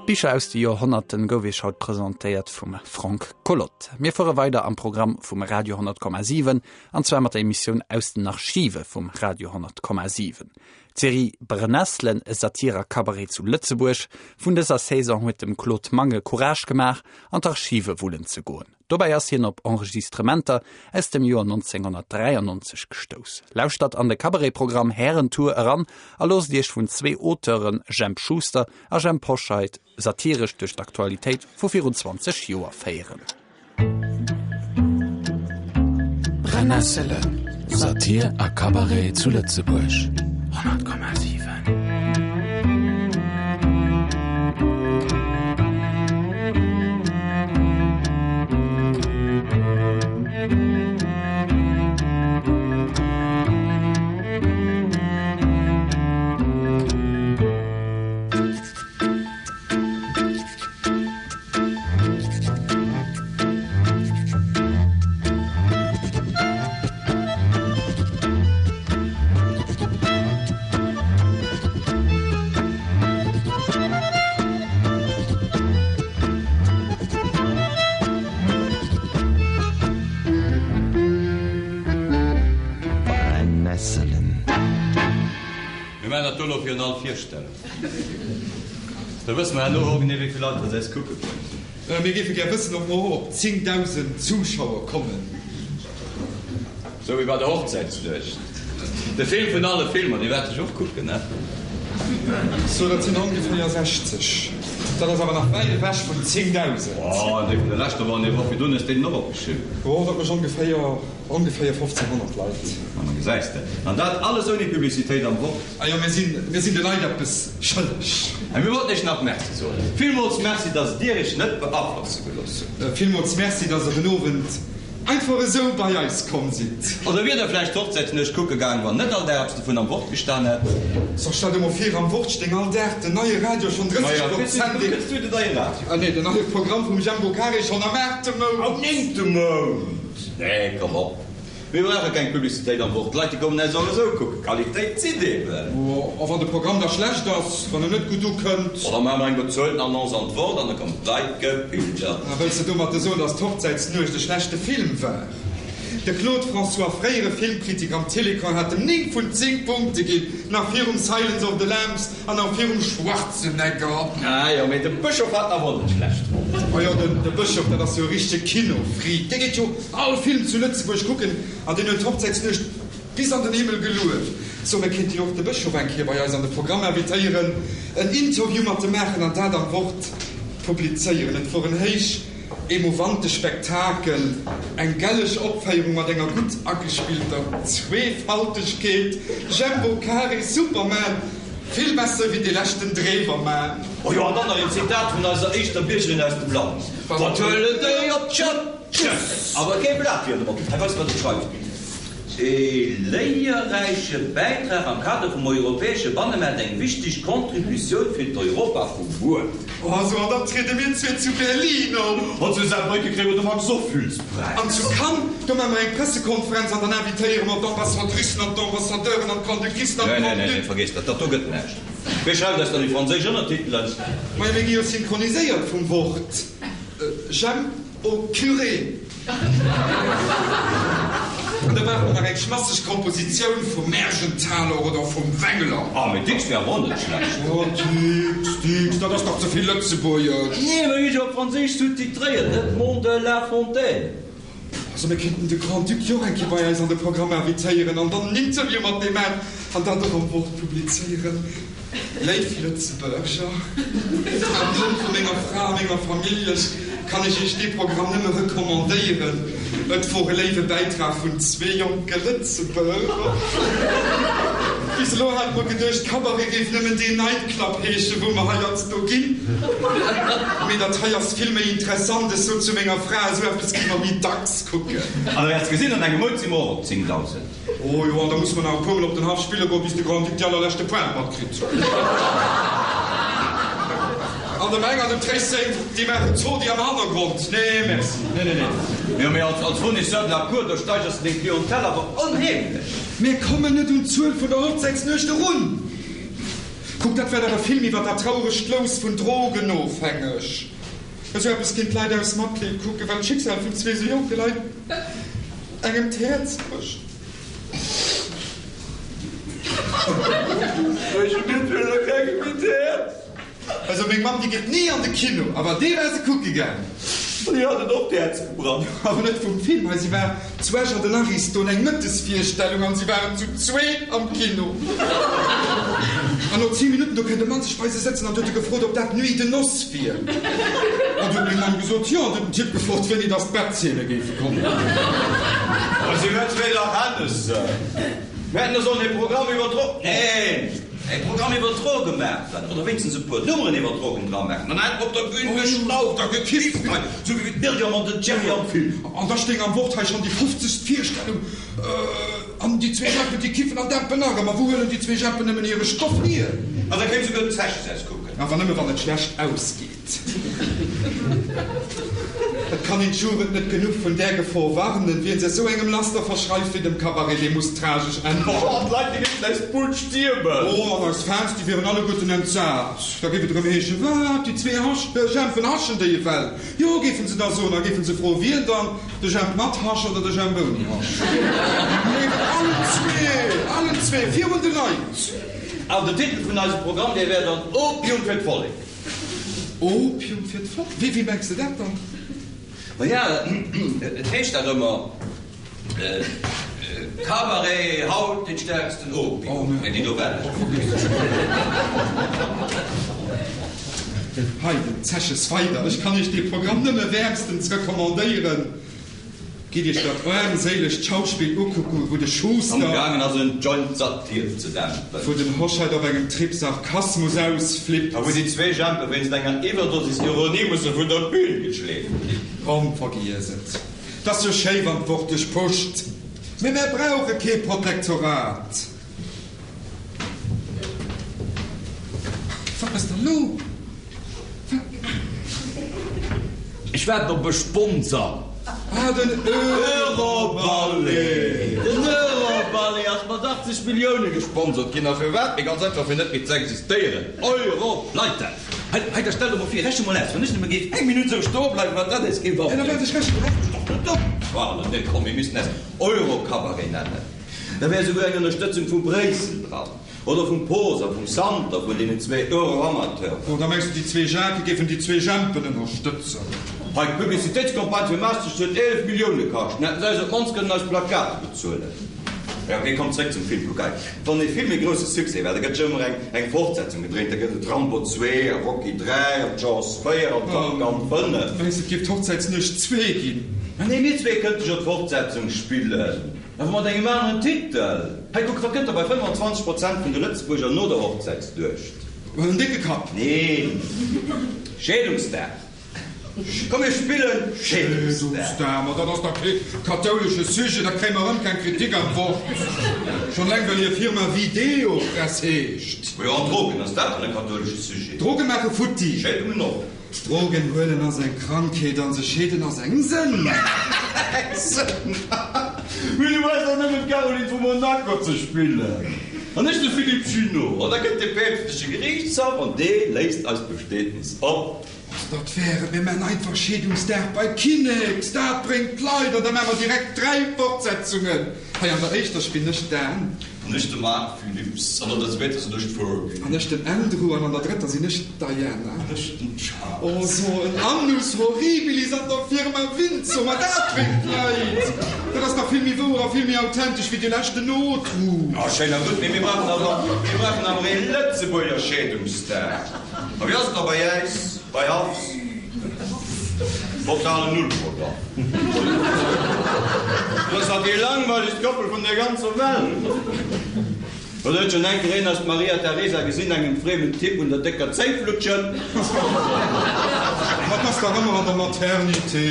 D'Bicher aus de Joerhonnerten gouf iech haut presentéiert vum Frank Collot. Mir fuere weider am Programm vum Radio 100,7 an zwar mat der Emissioun Aus den Archive vum Radio 100,7. D'Serie Brennesselen, e Satir a Cabaret zu Lëtzebuerg vun dëser Saison huet dem Claude Mangen Courage gemaach an d'Archive wullen ze goen. Dobäi ass hien op Enregistrementer aus dem Joer 1993 gestouss. Lauschtert an de Cabaret-Programm Härentour eran a loosst Iech vun zwee Auteuren, Jemp Schuster a Jhemp Hoscheit, satiresch duerch d'Aktualitéit vu virun 20 Joer féieren. Brennesselen. Satir a Cabaret zu Lëtzebuerg. 100,7. Brennesselen. Mir maachen dat do elo virun all Virstellung. Da wësse mer herno och genee, wéi vill Leit dass eis kucke kommen. Mir géife gär wëssen, ob mer och op 10.000 Zuschauer kommen. Sou wéi bei der Hochzäitsnuecht. De Film vun alle Filmer, dee waert ech och kucken, ne? So, dat sinn ongeféier 60. Dat ass awer nach wäit ewech vun 10.000. Oh, dee vun der leschter Woch an déi Woch virdrun hues de den och opgeschriwwen. Oh, dat mécht ongeféier, ongeféier 1.500 Leit. Ma gesäis de. An dat alles ouni Publicitéit am Wort. Ah jo, mir sinn, mir sinn de Leit eppes schëlleg. A mir wollten iech nach Merci soen. Villmools Merci, dass dir iech net beaflosse gelooss hutt. Villmools Merci, dass der den Owend Einfach esou bei eis komm sidd. Oder wier der vläicht d'Hochzäitsnuecht kucke gaang, wann net all Dag eppes dovun am Wort gestan hätt? So, stell der mol vir, am Wort stéing all Dag den neie Radio schonn 30 Prozent. Wéi kënns du den neie Radio? Ah nee, den neie Programm vum Jembo Carré schonn am aachte Mount. Am néngte Mount? Nee, komm op. Mir brauche keng Publicitéit am Wort, d'Leit déi kommen äis och esou kucken. Qualitéit zitt eben. A wann de Programm da schlecht ass, wann en net gutt ukënnt? Oh, da maache mer eng bezuelten Annonce an d'Wort an da kommen d'Leit gepilgert. A wëlls de domatter soen, datt d'Hochzäitsnuecht e schlechte Film war? De Claude François, fréiere Filmkritiker am Télécran, hat em 9 vun 10 Punkte ginn, nach virum Silence of the Lambs an nach virum Schwarzenegger. Ah jo, mee de Bëschof hat en awer och net schlecht fonnt. Oh jo, de Bëschof, dat ass jo e richtege Kinofreak. Dee geet jo all Film zu Lëtzebuerg kucken an deen huet d'Hochzäitsnuecht bis an den Himmel gelueft. So, mir kéinte jo och de Bëschof eng Kéier bei eis an de Programm invitéieren, en Interview mat em maachen an dat am Wort publizéieren. Et wor en héich emouvante Spektakel, eng gelleg Opféierung mat enger gutt agespillter Zweefaltegkeet. Jembo Carré, Superman, vill besser wéi dee leschten Drewerman. Oh jo, an dann nach een Zitat vun eiser éischter Biergerin aus dem Land, Wat huelen déi op d'Schëpp? Tschëss! Awer kee Blat fir drop. Hei weist wat et schreift, E léierräiche Bäitrag am Kader vum europäesche Bannemaart, eng wichteg Contributioun fir d'Europa vu muer. Oh sou, an dann triede mir zwee zu Berlin op. An zu Saarbrücken kréie mer de Max Ophüls-Präis. An zu Cannes, do maache mer eng Pressekonferenz an dann invitéiere mer d'Ambassadricen an d'Ambassadeuren an d'Grande-Ducessen an Nee, nee, nee, d'Grande-Ducs. vergiess dat, dat do gëtt näischt. Wie schreift eis dann déi franséisch Ënnertitelen? Majo, mir gi jo synchroniséiert vum Wort. J'aime. Au curé! An da brauche mer nach eng schmasseg Kompositioun vum Mergenthaler oder vum Wengler. Ah, mee Dicks wär awer och net schlecht. Oh, Dicks, Dicks, dat ass dach ze vill Lëtzebuergesch. Nee, mir hu jo op Franséisch sous-titréiert, Edmond de La Fontaine. Also, mir kéinten de Grand-Duc jo och eng Kéier bei eis an de Programm invitéieren an dann en Interview mat deem maachen an dat och am Wort publizéieren. Léif Lëtzebuerger, am Numm vu menger Fra a menger Famillj kann ech Iech dee Programm nëmme recommandéieren. Et wor e léiwe Bäitrag vun zwee jonke Lëtzebuerger. Bis elo hate mer geduecht, Cabaret géif nëmmen deen Nightclub heeschen, wou mer heiansdo ginn. Mee dat hei ass vill méi interessant. Ech sot zu menger Fra, esou eppes géife mer méi dacks kucken. An der wäerts gesinn, an engem Mount si mer och op 10.000. Oh jo, an da muss mer nach e puermol op den Haff spille goen, bis de Grand-Duc déi allerleschte Pointe matkritt. An dem Eng an dem Tréisseng, déi maachen Zodi am Hannergrond. Nee, merci. Nee, nee, nee. Jo, mee als, als Fournisseur de la Cour, do steigers de deng Clientèle awer onheemlech. Mir kommen net un d'Zuel vun der Hochzäitsnuecht erun. Kuck, dat war dach e Film iwwer dat trauregt Lous vun Drogenofhängeg. Esou eppes ginn d'Leit aus Matleed kucken, well d'Schicksal vun zwee sou jonke Leit engem d'Häerz brécht. Bréche mir d'Wille kengem méi d'Häerz? Also meng Mamm déi geet ni an de Kino, awer dee war se kucke gaang. Déi hat et och d'Häerz gebrach. Awer net vum Film hei, si war zu Esch an den Ariston eng Mëttesvirstellung an si waren zu zwee am Kino. An no 10 Minutten do kënnt e Mann sech bei se sëtzen an huet e gefrot ob dat Nuit de noces wier. An du huet meng Mamm gesot jo an du huet den Typ gefrot wéini dass d'Bettzeene géife kommen. A si huet zwee Dach Hennessen. Mir hätten da sollen e Programm iwwer Dro. Neen! E Programm iwwer Droge maachen, oder wéinstens e puer Nummeren iwwer Drogen dra maachen, dann hätt mer op der Bühn geschnauft a gekifft hei, sou wéi d'Myriam an den Thierry am Film. An da stéing am Wort hei schonn déi fofzegst Virstellung, an déi zwee Jeppen, déi kiffen an dämpen nach ëmmer. Wou huelen déi zwee Jeppen nëmmen hire Stoff hier? An da kéim souguer den Zeches aus kucken. Awer nëmme wann et schlecht ausgeet. Et kann een d'Jugend net genuch vun där Gefor warnen. Wien sech esou engem Laster verschreift wéi dem Cabaret, dee muss tragesch enden. Oh, an d'Leit, déi géifen eis d'Bull stiermen. Oh, an eis Fans, déi wieren alleguerten entsat. Da géif et erëm heeschen, Wat, déi zwee Hasch, Jempen haschen déi ewell? Jo, géifen se da soen, a géifen se froen, wien dann, de Jemp mat Hasch oder de Jemp ouni Hasch? Mee allen zwee, allen zwee, virun de Leit! An den Titel vun eisem Programm, dee wär dann Opium fir d'Vollek. Opium fir d'Volk? Wéi, wéi mengs de dat dann? Maja, et heescht dach ëmmer, Cabaret, haut den stärksten Opium. Mee déi do well ech net. Hei, den Zeches weider, Ech kann Iech dee Programm nëmme wäermstens recommandéieren. Gitt Iech dat aarmséilegt Schauspill ukucken, wou de Schuster. Am gaangen ass en Joint Satir ze dämpen. Wou den Hoscheit op engem Trip Sarkasmus ausflippt. A wou déi zwee Jempe wéinst enger Iwwerdosis Ironie musse vun der Bühn geschleeft ginn. Komm, vergiess et. 't ass jo schéi wann d'Wort dech pusht, mee mär brauche kee Protektorat. Wat ass dann lo? Wat? Ech waarden op e Sponsor. Ah, den Euroballet! Den Euroballet ass mat 80 Millioune gesponsert ginn. A firwat? Mee ganz einfach, fir net méi ze existéieren. Europleite! Hei, hei, da stell der mol vir, rechne mol aus, wann ech nëmme géif eng Minutt esou stoe bleiwen, wat dat eis géif abréngen. Nee, komm, mir missten eis Eurocabaret nennen. Da wär esouguer eng Ënnerstëtzung vu Bréissel dran. Oder vum Poos a vum Santer, vun deenen zwee Euroamateuren. Oder mengs de déi zwee Jacquë géifen déi zwee Jempen ënnerstëtzen? Hei, d'Publicitéitscampagne fir Maastricht huet 11 Millioune kascht. Mir hätten se eis op d'mannst kënnen eis Plakate bezuelen. Jo, ok, komm, zréck zum Film. Kuck hei, wann ee Film ee grousse Succès war, da gëtt jo ëmmer eng eng Fortsetzung gedréint. Da gëtt et Rambo 2 a Rocky 3 an Jaws 4 an Top Gun 5. Mengs de, et géif d'Hochzäitsnuecht 2 ginn? Mä nee, mir zwee kënnte jo d'Fortsetzung spillen. Awer mat engem aneren Titel. Hei kuck, wat gëtt da bei 25 Prozent vun de Lëtzebuerger no der Hochzäitsduecht? En décke Kapp. Neen, Scheedungsdag. Komm mir spillen Scheedungsdag. Scheedungsdag, ma dat ass dach kee kathoulesche Sujet, da kréie mer erëm keng Kritik am Wort. Schonn eleng well hir Firma Videopress heescht. Majo, an Drogen, ass dat dann e kathoulesche Sujet? Droge maache futti. Scheedungen och. Drogen huelen ass eng Krankheet an sech scheeden ass eng Sënn. Eng Sënn? Mee du brauchs dach nëmmen d'Caroline vu Monaco ze spillen an ech de Philippe Junot an da kënnt de päpstleche Geriichtshaff an dee léist eist Bestietnis op. Dat wär et, mir man einfach Scheedungsdag bei Kinnex, dat bréngt d'Leit an da man mer direkt 3 Fortsetzungen. Hei an der éischter spillen ech d'Anne. An ech de Marc Philipps. An an der zweeter sinn ech d'Fergie. An ech den Andrew. An an der drëtter sinn ech d'Diana. An ech den Charles. Oh, so en Annus horribilis an der Firma Windsor, ma dat bréngt d'Leit! Dat ass dach vill méi wouer a vill méi authentesch wéi dee leschten Notruf. Oh, schéin a gutt, mee mir brauchen awer, mir brauchen awer ee Lëtzebuerger Scheedungsdag. A wéi ass et da bei äis, bei Haffs? Totalen Nullprogramm. Dat ass dach déi langweilegst Koppel vun der ganzer Welt. Oder huet schonn eng Kéier een eis d'Maria Teresa gesinn engem friemen Typ un der décker Zéi flutschen? Ma 't ass dach ëmmer an der Maternité.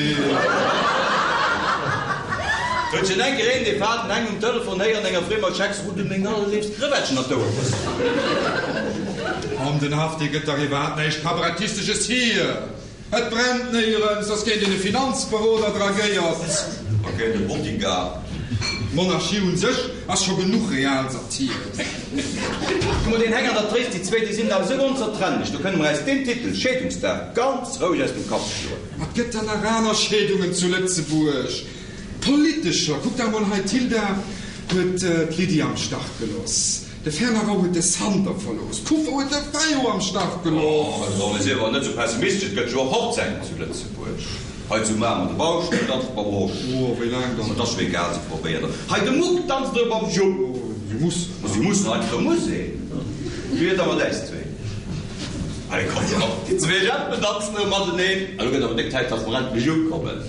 Huet schonn eng Kéier een dee faden Heng um Telefon héieren enger friemer Schex Rudde meng allerléifst Krëwettchen an d'Ouer bëssen? An den Haff, dee gëtt dach iwwerhaapt näischt Kabarettistesches hier. Et brennt néierens, ass géint een e Finanzberoder dragéiert. A géint e Bodyguard. D'Monarchie un sech ass scho genuch Realsatir. Kuck mol, deen Heng an der Tréis, déi zwéi, déi sinn da esou onzertrennlech, do kënne mer äis deen Titel, Scheedungsdag, ganz roueg aus dem Kapp schloen. Ma 't gëtt der nach aner Scheedungen zu Lëtzebuerg, politescher. Kuck der emol hei, d'Hilda huet d'Lydie am Stach geloss, de Fernand Rau huet de Santer verlooss, d'Kufa huet de Fayot am Stach gelooss. Oh, mee sief awer net esou pessimistesch, et gëtt jo och Hochzäiten zu Lëtzebuerg. Hei zu Mamer, de Bauscht danzt mam Rosch. Oh, wéi laang dann? Ma 't ass jo egal, se probéiert et. Hei de Muck danzt erëm mam Jupp. Oh, si mussen. Ma si mussen, heiansdo muss een. Wéi wier et da mat äis zwee? Allez, komm, komm, déi zwee Jeppen danzen erëm mateneen. Elo gëtt awer déck Zäit, dass mer endlech ukommen.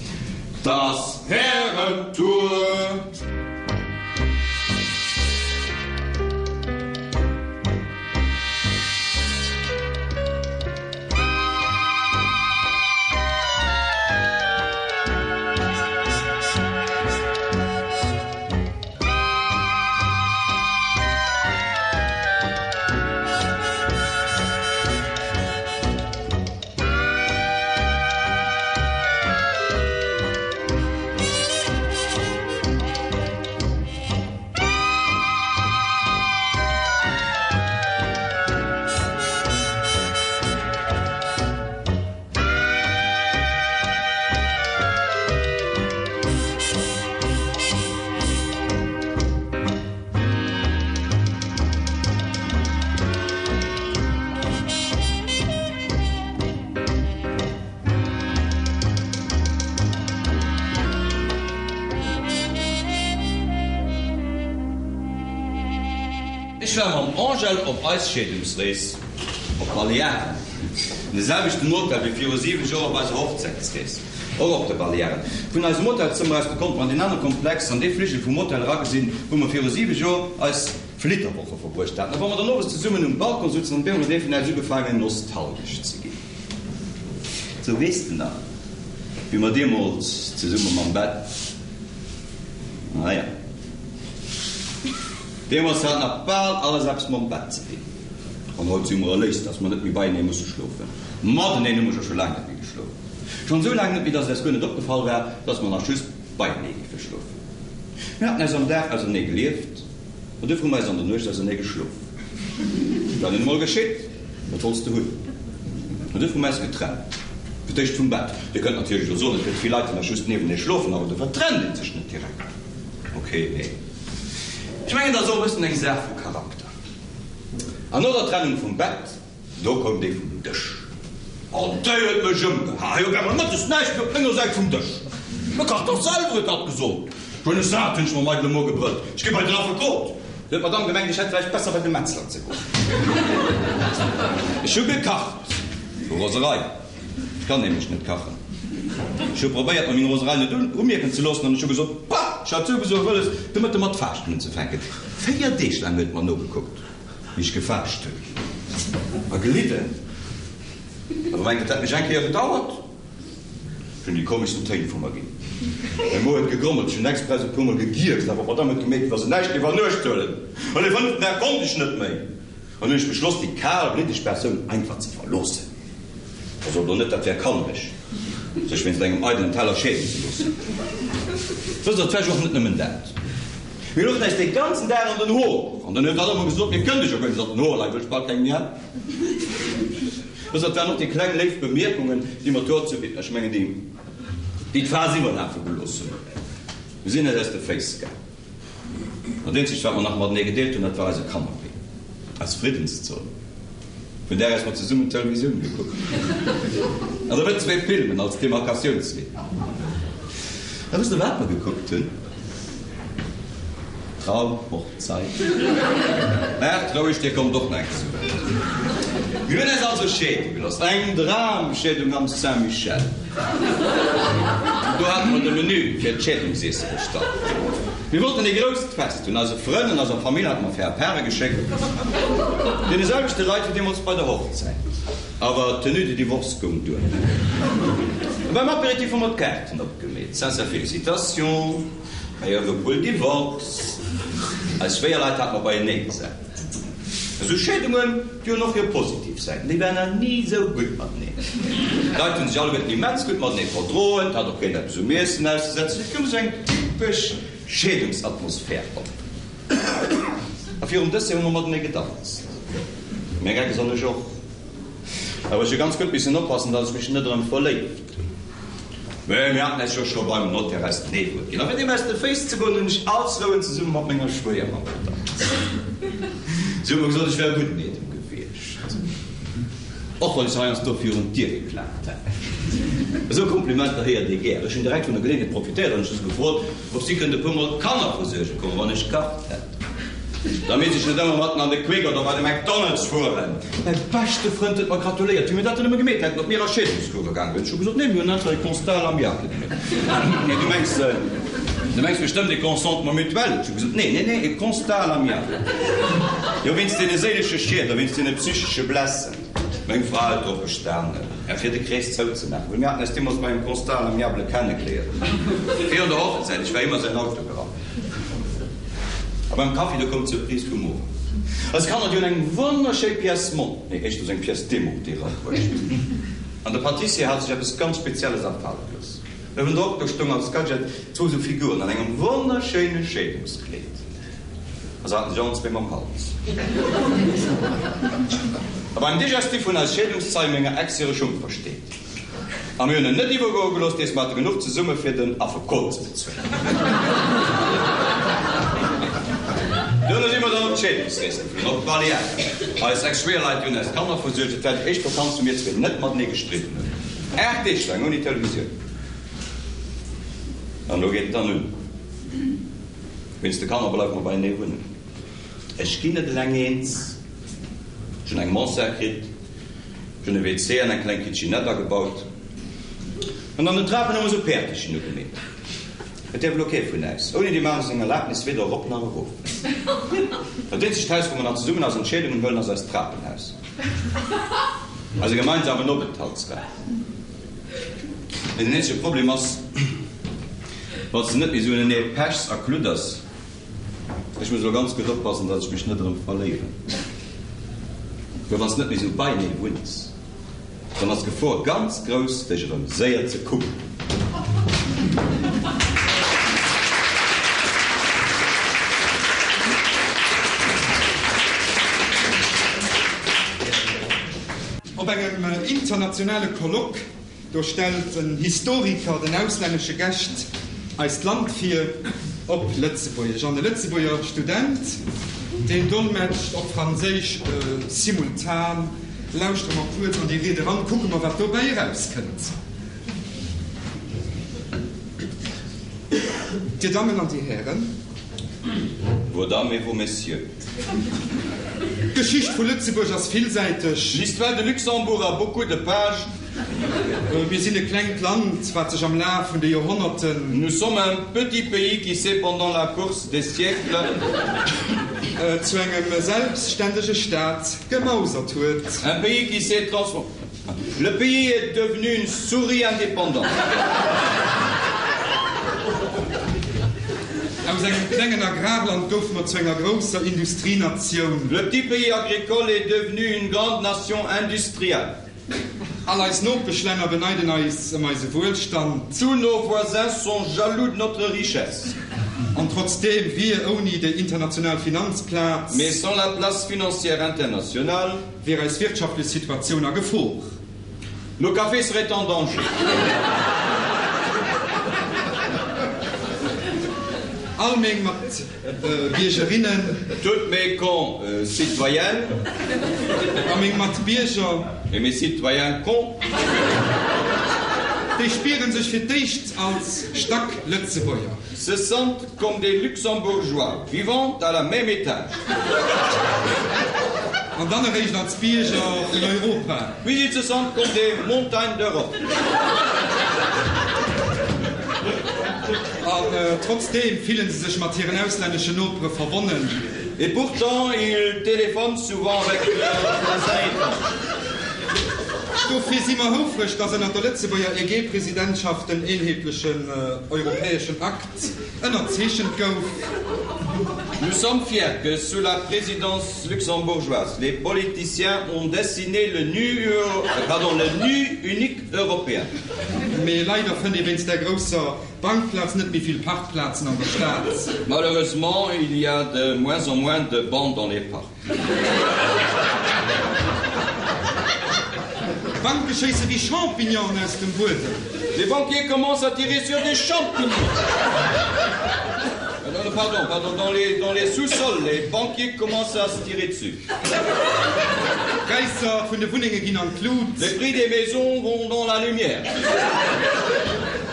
't ass Härentour! Ech war mam Angèle op eis Scheedungsrees op d'Balearen, an de selwechten Hotel wéi viru 7 Joer op eiser Hochzäitsrees, och op de Balearen. Vun eisem Hotelzëmmer aus, do konnte mer an deen anere Komplex, an dee Fligel vum Hotel eragesinn, wou mer viru 7 Joer eis Flitterwoche verbruecht haten. A wa mer dann owes zesummen um Balcon sutzen, dann huet bemol ee vun äis ugefaangen nostalgesch ze ginn. Sou, weess de nach, wéi mer deemools zesumme mam Bett, naja, deemools hat nach bal alles eppes mam Bett ze dinn. An haut si mer erléist, dass mer net méi beienee musse schlofen. Mateneen hu mer jo scho laang net méi geschlof. Schonn esou laang net méi, dass et äis guer net opgefall war, dass mer nach just beienee géife schlofen. Mir haten äis am Dag ausernee gelieft. An duerfir hu mer eis an der Nuecht ausernee geschlof. Wat nun emol geschitt, wat wollts de hunn? An duerfir hu mer eis getrennt. Fir d'éischt vum Bett. Dir kënnt natierlech elo soen, et gëtt vill Leit, déi nach just niewenee schlofen, awer dofir trennt ee sech net direkt. Ok, nee. Ech mengen, dat ass och e bëssen eng Saach vu Charakter. An no der Trennung vum Bett, Do koum déi vum Dësch an déi huet mech ëmgeha. Hei op eemol mëttes näischt méi op menger Säit vum Dësch. Mä kach dach selwer, huet hatt gesot. Ech hunn es sat, hunn ech mam eidele Mo gebrëllt. Ech gi bei den Affekot. Du huet d'Madame gemengt, ech hätt vläicht besser bei de Metzler ze goen. Ech hu gekacht vu Roserei. Ech kann nämlech net kachen. Ech hu probéiert, mer meng Roserei net umierken ze loossen an ech hu gesot, Bah, ech hat souwisou wëlles, de Mëtte mat Faaschten unzefänken. Véier Deeg laang huet et mer nogekuckt. Wéi ech gefaascht hunn a gelidden. Awer mengt, et hätt mech eng Kéier bedauert. Ech hunn déi komeschsten Téin vu mer ginn. Mäi Mo huet gegrommelt, ech hunn express e puermol gegierkst, awer d'Madame huet gemierkt, wéi wa se näischt géif an Uecht huelen. An de fënneften Dag konnt ech net méi. An hunn ech beschloss, déi kalbliddeg Persoun einfach ze verloossen. A sot elo net, dat wär kannereg, sech wéinst engem eidelen Teller scheeden ze loossen. Wësst Der, et war jo och net nëmmen dat. Mir louchen äis dee ganzen Dag an den Hoer. An dann huet hatt ëmmer gesot, Mir kënnt ech jo guer net an den Hoer leien, wëll ech bal keng méi hat. Wësst Der, et waren och déi kleng léif Bemierkungen, déi mer d'Hoer zu, ech mengen déi, déi d'Phas iwwerlafe gelooss hunn. Mir sinn eis aus de Féiss gaang. An dat eenzegt, wat mer nach matenee gedeelt hunn, dat war eise Kannapee, eis Friddenszon. Vun där aus mer zesummen d'Televisioun gekuckt hunn. An da net zwéi Filmen als Demarkatiounslinn. A wësst Der, wat mer gekuckt hunn? Traumhochzeit. Maacht roueg, Dir kommt och nach eng zu Wuert. Mir hunn eis also scheede gelooss. Eng Dramscheedung am Saint-Michel. Do hate mer de Menü fir d'Scheedungsiesse bestallt. Mir wollten ee grousst Fest hunn. Eise Frënn an eiser Famill hate mer Faire-Pare geschéckt. Deene selwechte Leit wéi deemools bei der Hochzäit. Awer d'Tenue de divorce goung duer. A beim Apéritif hu mer d'Kaarten opgemeet. Sincères félicitations, meilleurs vœux pour le divorce. Eis Schwéierleit hate mer beienee gesat. Esou Scheedungen, déi hunn och hir positiv Säiten. Déi waren nach ni esou gutt mateneen. D'Leit hunn sech alleguerten immens gutt matenee verdroen, et hat och keen eppes um Iessen auszesetzen. Et koum esou eng typesch Scheedungsatmosphär op. A virum Dessert hu mer matenee gedanzt. Meng Ex an ech och. Awer ech hu ganz gutt missen oppassen, datt ech mech net erëm verléift hunn. Mä mir haten eis jo scho beim Notaire eist Nee-Wuert ginn. A fir deem aus de Féiss ze goen, hunn ech all Souen zesumme mat menger Schwéiermamm gedanzt. Si huet mer gesot, ech wär e gudden Eedem gewiescht, och wann ech se heiansdo virun d'Dier geklaapt hätt. Esou Komplimenter héiert ee gär. Ech hunn direkt vun der Geleeënheet profitéiert an ech hu se gefrot, ob si kënnt e puer Mol d'Kanner versuerge kommen, wann ech kacht hätt. Da misst ech net ëmmer matten an de Quick oder bei de McDonald's fueren. Mäi beschte Frënd huet mer gratuléiert, wéi mir dat dann nëmme gemeet hätten, ob mir a Scheedungscourse gaange wieren. Ech hu gesot, Nee, mir hunn einfach e Constat à l'amiable gemeet. Nee, du mengs, du mengs bestëmmt e Consentement mutuel. Ech hu gesot, Nee, nee, nee, e Constat à l'amiable. Jo, wéinst deene séilesche Schied a wéinst deene psychesche Blessen. Meng Fra huet drop bestanen, fir de Krees zouzemaachen, well mir haten eis deemools bei engem Constat à l'amiable kennegeléiert, virun der Hochzäit. Ech war iwwer säin Auto gerannt. A beim Kaffi, do koum d'Surprise vum Owend. Eis Kanner, déi hunn eng wonnerschéi Pièce mont, nee, éischters eng Pièce démontée erabruecht. An de Pâtissier hat sech eppes ganz Spezielles afale gelooss. Uewendrop, do stoung als Gadget zwou esou Figuren an engem wonnerschéine Scheedungskleed. A se haten sech allen zwee mam Hals. A beim Digestif hunn eis Scheedungszeie menger Ex hire Schung versteet. A mir hunn en net iwwergoe gelooss, dees mer hate genuch zesumme fir den Affekot ze bezuelen. Duerno si mer dann op d'Scheedungsrees geflunn, op d'Balearen. Eis Ex-Schwéierleit, déi hunn eis d'Kanner versuergt. Et war déi éischt Vakanz, wou mir zwee net matenee gestridden hunn. 8 Deeg laang ouni Televisioun. An elo geet et dann un. Wéinst de Kanner bleiwe mer beienee wunnen. Ech ginn net eleng eens. Ech hunn eng Mansard kritt. Ech hunn e WC an eng kleng Kitchenette agebaut. An an den Trapen hu mer esou Päertechen ugemeet. Et däerf elo kee vun äis ouni deem anere seng Erlaabnis weder erop nach erof. Dat eenzegt Haus, wou mer nach zesummen eis Entscheedungen huelen, ass eist Trapenhaus, eise gemeinsamen Openthaltsraum. Mee den eenzege Problem ass, wann s de net méi esou unenee pechs a kludders, Ech muss elo ganz gutt oppassen, datt ech mech net erëm verléieren. Well wann s net méi esou beienee wunns, dann ass d'Gefor ganz grouss, dech erëm séier ze kucken. Op engem internationale Colloque Do stellt en Historiker den auslännesche Gäscht eist Land vir, op Lëtzebuergesch, an e Lëtzebuerger Student, deen dolmetscht op Franséisch simultan. Lauschtere mer kuerz an déi Ried eran, kucke mer, wat dobäi erauskënnt. Dir Dammen an Dir Hären. Vos Dames et vos Messieurs. D'Geschicht vu Lëtzebuerg ass villsäiteg. L'histoire de Luxembourg a beaucoup de pages. Mir sinn e klengt Land, wat sech am Laf vun de Joerhonnerten. Nous sommes un petit pays qui s'est pendant la course des siècles. Zu engem selbstständege Staat gemausert huet. Un pays qui s'est transformé. Le pays est devenu une souris indépendante. Aus engem klengen Agrarland goufe mer zu enger grousser Industrienatioun. Le petit pays agricole est devenu une grande nation industrielle. All eis Nopeschlänner beneiden eis ëm eise Wuelstand. Tous nos voisins sont jaloux de notre richesse. An trotzdeem wier ouni déi international Finanzplaz. Mais sans la place financière internationale. Wier eis wirtschaftlech Situatioun a Gefor. Nos cafés seraient en danger. All meng mat Biergerinnen. Toutes mes con citoyennes. A meng mat Bierger. Et mes citoyens con. Déi spieren sech fir d'éischt als Stack-Lëtzebuerger. Se sentent comme des Luxembourgeois vivant à la même étage. An dann eréischt als Bierger vun Europa. Puis ils se sentent comme des montagnes d'Europe. An trotzdeem fillen se sech mat hiren auslänneschen Nopere verbonnen. Et pourtant ils téléphonent souvent avec leurs voisins étrangers. Dofir si mer houfreg, dass ënnert der Lëtzebuerger EG-Presidentschaft den eenheetlechen europäeschen Akt ënnerzeechent gouf. Nous sommes fiers que sous la présidence luxembourgeoise, les politiciens ont dessiné le nu, pardon, le nu unique européen. Mee leider fënnt ee wéinst där grousser Bankplaz net méi vill Parkplazen an der Stad. Malheureusement, il y a de moins en moins de bancs dans les parcs. D'Banke schéisse wéi Champignonen aus dem Buedem. Les banquiers commencent à tirer sur des champignons. Non, non, pardon, pardon, dans les, dans les sous-sols, les banquiers commencent à se tirer dessus. D'Präisser vun de Wunnenge ginn an d'Lut. Les prix des maisons vont dans la lumière.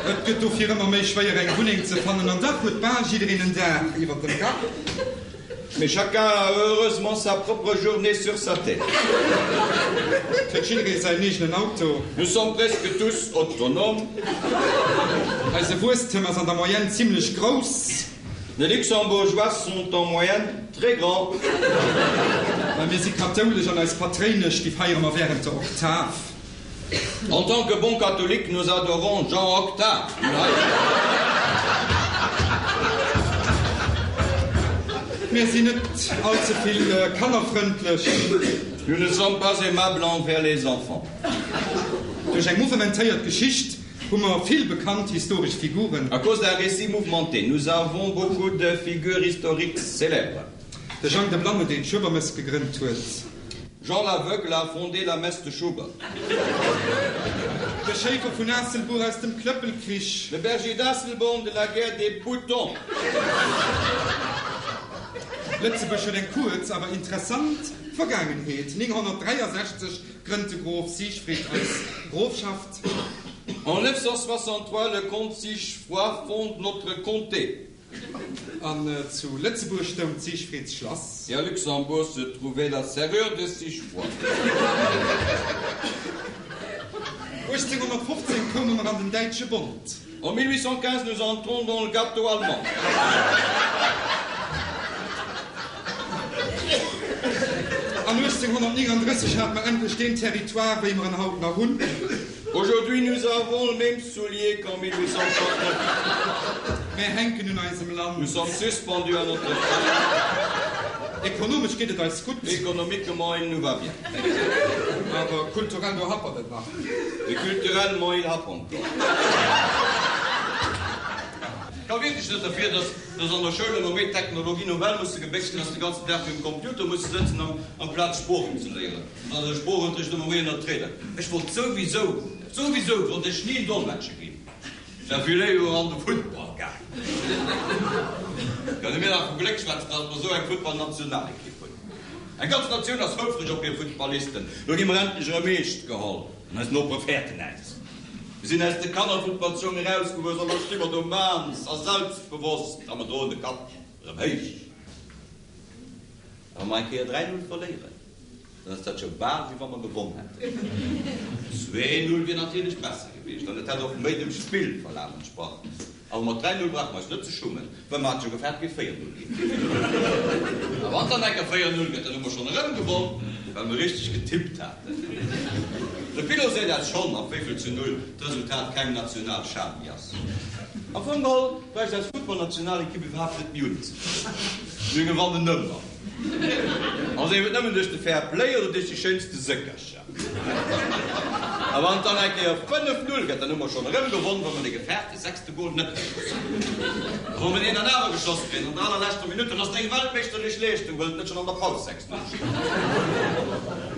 Et gëtt dofir ëmmer méi schwéier eng Wunneng ze fannen an dach huet bal jiddereen en Daach iwwer dem Kapp. Mais chacun a heureusement sa propre journée sur sa tête. Et huet jidderee säin eegenen Auto. Nous sommes presque tous autonomes. Eise Wuesstem ass an der Moyenne zimlech grouss. Les Luxembourgeois sont en moyenne très grands. Well mir si kathoulesch an eis Patréinesch, déi feiere mer wärend der Oktav. En tant que bons catholiques, nous adorons Jean Octave. Mir sinn net all ze vill kannerfrëndlech. Nous ne sommes pas aimables envers les enfants. Duerch eng mouvementéiert Geschicht hu mer vill bekannt historesch Figuren. À cause d'un récit mouvementé, nous avons beaucoup de figures historiques célèbres. De Jang de Blanne, deen d'Schuebermëss gegrënnt huet. Jean l'Aveugle a fondé la messe de Schubert. De Schéifer vun Aasselbuer aus dem Klëppelkrich. Le berger d'Asselborn de la guerre des boutons. Lëtzebuerg huet eng kuerz, awer interessant Vergaangenheet. 963 grënnt de Grof Siegfried eis Grofschaft. En 963, le comte Sigefroid fonde notre comté. An zu Lëtzebuerg stoung d'Siegfriedsschlass. Et à Luxembourg se trouvait la serrure de Sigefroid. 1815 koume mer an den Däitsche Bond. En 1815, nous entrons dans le gâteau allemand. An 1839 hate mer endlech deen Territoire, wéi mer en haut nach hunn. Aujourd'hui, nous avons le même soulier qu'en 1839. Mär hänken un eisem Land. Nous sommes suspendus à notre pays. Ekonomesch geet et eis gutt. Économiquement, il nous va bien. Awer kulturell, do happert et nach. Mais culturellement, il happe encore. Ka wierklech net derfir, dass dass an der Schoul ëmmer méi Technologie nouvelle musse gebéchst ginn, dass de ganzen Dag virum Computer musse sëtzen amplaz Sproochen ze léieren. An dann de Sproochunterricht ëmmer méi ënnert d'Räder. Ech wollt souwisou, souwisou wollt ech ni en Dolmetscher ginn. Ech war vill léiwer an de Futtball gaangen. Kënne mir nach vu Gléck schwätzen, datt mer esou eng Futtballnationalekipp hunn. Eng ganz Natioun ass houfreg op hir Futtballisten. Lo gi mer endlech erëm eescht geholl an eis Nopere fäerten äis. Mir sinn aus de Kannerfuttballsschong erausgewuess a lo sti mer do maans a selbstbewosst a mer droen de Kapp erëm héich. A wa mer eng Kéier 3, 0 verléieren, dann ass dat scho bal wéi wa mer gewonn hätten. 2, 0 wier natierlech besser gewiescht an et hätt och méi dem Spillverlaf entsprach. Awer mat 3, 0 brauche mer eis net ze schummen, well mer hate jo gefaart, et géif 4, 0 ginn. A wann et dann eng Kéier 4, 0 gëtt, dann hu mer schonn erëm gewonn, well mer richteg getippt haten. De Pilot seet eis schonn, ab wéivill zu 0 d'Resultat keng national Schan méi ass. Am Fong geholl bräicht eis Futtballnationalekipp iwwerhaapt net méi unzetrieden. Mir gewannen ëmmer. A sief et nëmmen duerch de Fair Play oder duerch déi schéinste Séckercher. A wann et dann eng Kéier 5, 0 gëtt, dann hu mer schonn erëm gewonn, wa mer dee gefaarte sechste Gol net geschoss hunn. A wa mer deen dann awer geschoss kréien an der allerleschter Minutt, dann ass et eng weltmeeschterlech Leeschtung, well et net schonn an der Paus 6, 0 steet.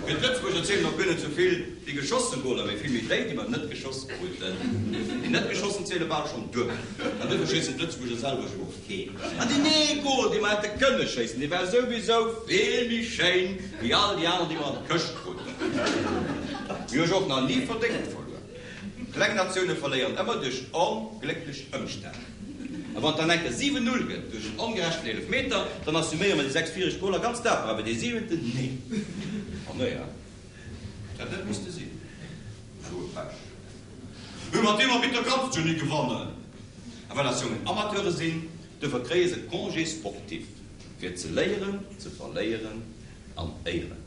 Fir d'Lëtzebuerger zielen och guer net sou vill déi geschosse Goler, mee vill méi déi, déi mer net geschoss kruten. Déi net geschossen ziele bal schonn duebel. An duerfir schéissen d'Lëtzebuerger selwer jo och keen. An deen ee Gol, dee mer hätte kënne schéissen, dee war souwisou vill méi schéin wéi all déi aner, déi mer an d'Këscht kruten. Mir hu jo och nach ni verdéngt verluer. Kleng Natioune verléieren ëmmer duerch onglécklech Ëmstänn. A wann et dann enke 7, 0 gëtt duerch en ongerechten Eelefmeter, dann assuméiere mer déi 6 viregt Goler ganz daper, awer dee siwenten, nee. An naja, et hätt net misste sinn. Esou e Pech. Mee mat deem Arbitter kanns du ni gewannen. A well eis Jongen Amateure sinn, duerfir kréie se Congé sportif, fir ze léieren ze verléieren an éieren.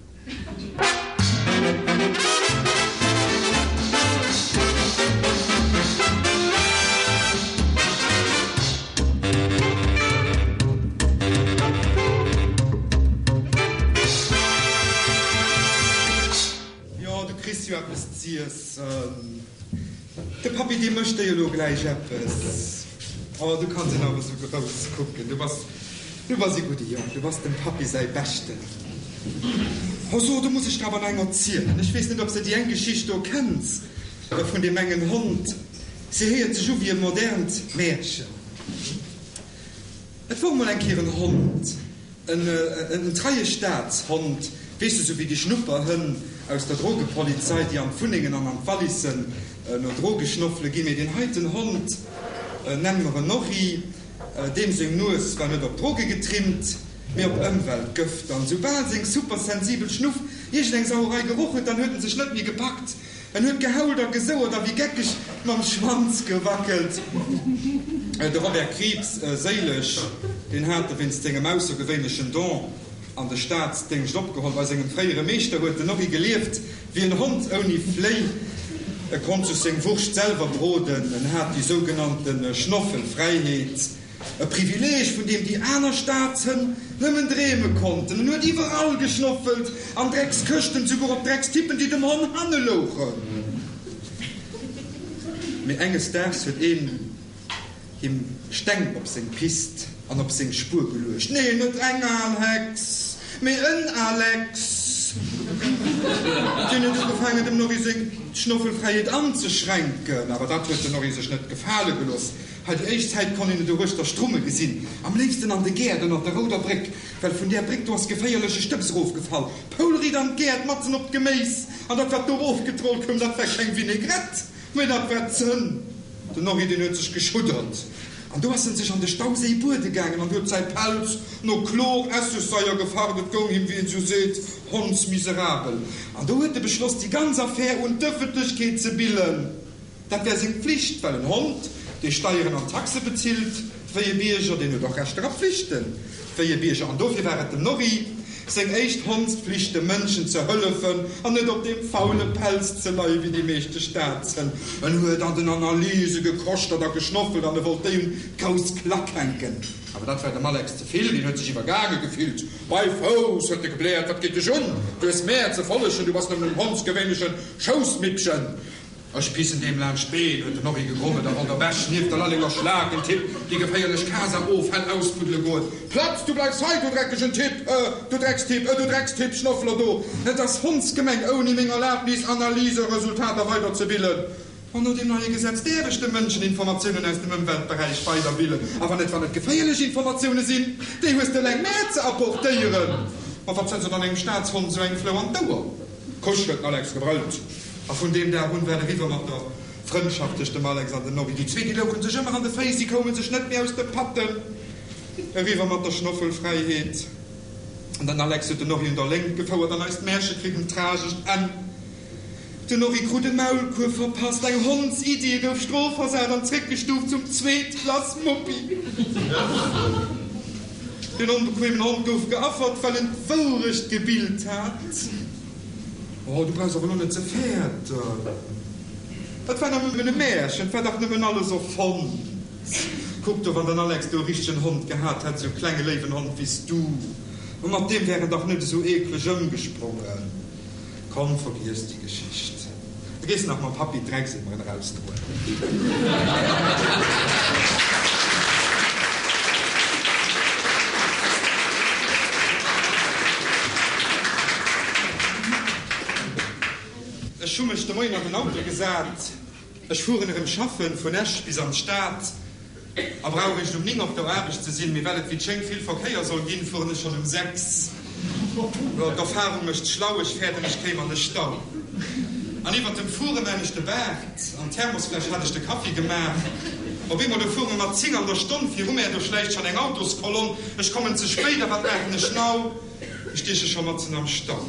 Jo, du kriss jo eppes z'iessen. De Pappi, dee mécht der jo elo gläich eppes. Oh, du kanns en awer esou grouss kucken. Du bass, du bass ee gudde Jong. Du bass dem Pappi säi Beschten. Oh so, do muss ech der awer nach eng erzielen. Ech weess net, ob s de déi eng Geschicht do kenns, vun deem engen Hond. Se héiert sech u wéi e modernt Märchen. Et wor mol eng Kéier en Hond, en treie Staatshond, weess de, sou wéi déi Schnupperhënn aus der Drogepolizei, déi an d'Wunnengen an an d'Wallissen no Droge schnoffele ginn. Mee deen heiten Hond, nenne mer en Norri, deem seng Nues war net op Droge getrimmt, mee op Ëmweltgëfter. An soubal seng supersensibel Schnuff iergendeng Sauerei geroch huet, dann huet en sech net méi gepackt. En huet gehault a gesouert a wéi geckeg mam Schwanz gewackelt. De Robert Krieps, séileg, deen hat e wéinst sengem aussergewéinlechen Don an de Staatsdéngscht opgeholl. Bei sengem fréiere Meeschter huet den Norri gelieft wéi en Hond ouni Fléi. E konnt sech seng Wurscht selwer broden, en hat déi sougenannte Schnoffelfräiheet. E Privileeg, vun deem déi aner Staatshënn nëmmen dreeme konnten. En huet iwwerall geschnoffelt, an Dreckskëschten, souguer op Dreckstippen, déi dem Honn hanne louchen. Mee enges Daags huet een him Steng op seng Pist an op seng Spuer geluecht. Nee, net eng al Hex, mee en Alex! Deen huet ugefaangen, dem Norri seng Schnoffelfräiheet anzeschränken. Awer dat huet den Norri sech net gefale gelooss. Hei déi éischt Zäit konnt een et doruechter strumme gesinn, am léifsten an de Gäert ënnert der rouder Bréck, well vun där Bréck do ass geféierleche Stëbs erofgefall, poulriit an d'Gäert, matzen op d'Geméis, an dat wat do erofgetrollt koum, dat war keng Vinaigrette, mä dat war Zënn. Den Norri, deen huet sech geschuddert, an do ass en sech an de Stauséi buede gaangen an huet säi Pelz no Chlor-Essegsaier gefacht, et goung him, wéi een esou seet, hondsmiserabel. An do huet e beschloss, déi ganz Affär un d'Ëffentlechkeet ze billen. Dat wär seng Pflicht, well en Hond, dee Steieren an Taxe bezilt wéi e Bierger, deen huet och Rechter a Pflichten wéi e Bierger. An dofir war et dem Norri seng éischt Hondspflicht, de Mënschen ze hëllefen an net op deem faule Pelz ze leie wéi déi meeschte Staatshënn. En huet an den Analyse gekoschtert a geschnoffelt an e wollt déi un d'grouss Klack hänken. Awer dat war dem Alex ze vill, deen huet sech iwwergaange gefillt. Bei Fouss! huet e gebläert, wat geet dech un? Du hues mär ze follegen, du bass nëmmen en hondsgewéinlechen Schoussmippchen! Ech pissen deem laanscht d'Been, huet den Norri gegrommelt a wollt der Bech nieft der Lallenger Schlak en Tipp déi geféierlech Casa-Offäll ausbuddele goen. Platz, du bleifs hei, du dreckegen Tipp, äh, du Dreckstipp, äh, du Dreckstipp, Schnoffler do! Et ass hondsgemeng, ouni meng Erlabnis Analyseresultater weiderzebillen. An no deem neie Gesetz däerf ech de Mënschen Informatiounen aus dem Ëmweltberäich weiderbillen, awer net wann et geféierlech Informatioune sinn, déi hues de eleng mär ze apportéieren. Ma wat setzt dann engem Staatshond esou eng Flou an d'Ouer? Kusch! huet den Alex gebrëllt. A vun deem Dag un war et eriwwer mat der Frëndschaft tëscht dem Alex an dem Norri. Déi zwee, déi louche sech ëmmer an de Féiss, si koume sech net méi aus de Patten. Eriwwer mat der Schnoffelfräiheet. An den Alex huet den Norri un der Léngt gefouert an eist Märche kritt en tragescht Enn. Den Norri krut e Maulkuerf verpasst, eng Hondsiddi, e gouf strofversat an zréckgestuuft zum Zweetklass-Muppi. Den onbequemen Hond gouf geaffert, well en d'Wourecht gebillt hat. Oh, du brauchs awer elo net ze fäerten. Et war nëmmen e Märchen, et war dach nëmmen alles erfonnt. Kuck do, wann den Alex do e richtegen Hond gehat hätt, esou e klenge léiwen Hond wéi s du, mat deem wär en dach net esou eekleg ëmgesprongen. Komm, vergiess déi Geschicht. Du gees nach mam Pappi d'Dreckseemeren erausdroen. Ech hu mech de Moien an den Auto gesat. Ech fueren erëm schaffen, vun Esch bis an d'Stad. A brauch eréischt um 9 op der Aarbecht ze sinn, mee well et wéi et schéngt vill Verkéier soll ginn, fueren ech schonn um 6. Jo, d'Erfahrung mécht schlau, ech fäerten ech kéim an de Stau. An iwwert dem Fuere maan ech de Baart, an d'Thermosfläsch hat ech de Kaffi gemaach. Op eemol, do fuere mer mat 10 an der Stonn viru mär, do schläicht schonn eng Autoskolonn, ech kommen ze spéit, a wat maachen ech now? Ech stieche scho matzen am Stau.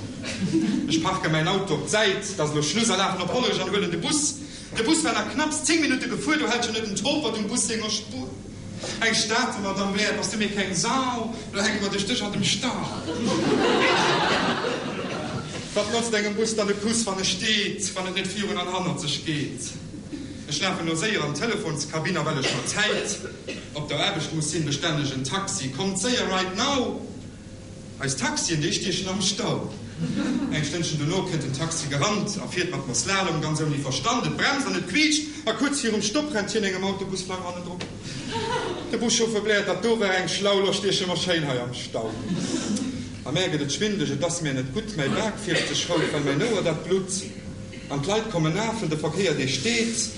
Ech parke mäin Auto op d'Säit, 't ass elo Schluss, a lafen op Hollerech an huelen de Bus. De Bus war nach knapps 10 Minutte gefuer, do hält scho net en Topert um Bus senger Spuer. Eng Stater Madame Blair, bass du mir keng Sau, lo hänke mer duerch dech an dem Stau. Wat notzt engem Bus dann e Kuss, wann e steet, wann et net virun an hannert sech geet? Ech lafen lo séier an d'Telefonskabinn a well ech mat Zäit op der Aarbecht muss sinn, bestellen ech en Taxi. Kommt séier, right now! Eis Taxien, déi stiechen am Stau. Eng Stënnchen dono kënnt en Taxi gerannt a fiert mat mer Slalom, ganz ouni Verstand. Et bremst an et quiitscht a kuerz virum Stopp rennt hien engem Autobusflang hannendrop. De Buschauffeur bläert, Dat do war eng schlau, lo stieche mer schéin hei am Stau. A mär gëtt et schwindeleg, et ass mär net gutt, mäi Bak fierft sech rout, well mäin Ouer dat blutt. An d'Leit kommen afen, de Verkéier dee steet,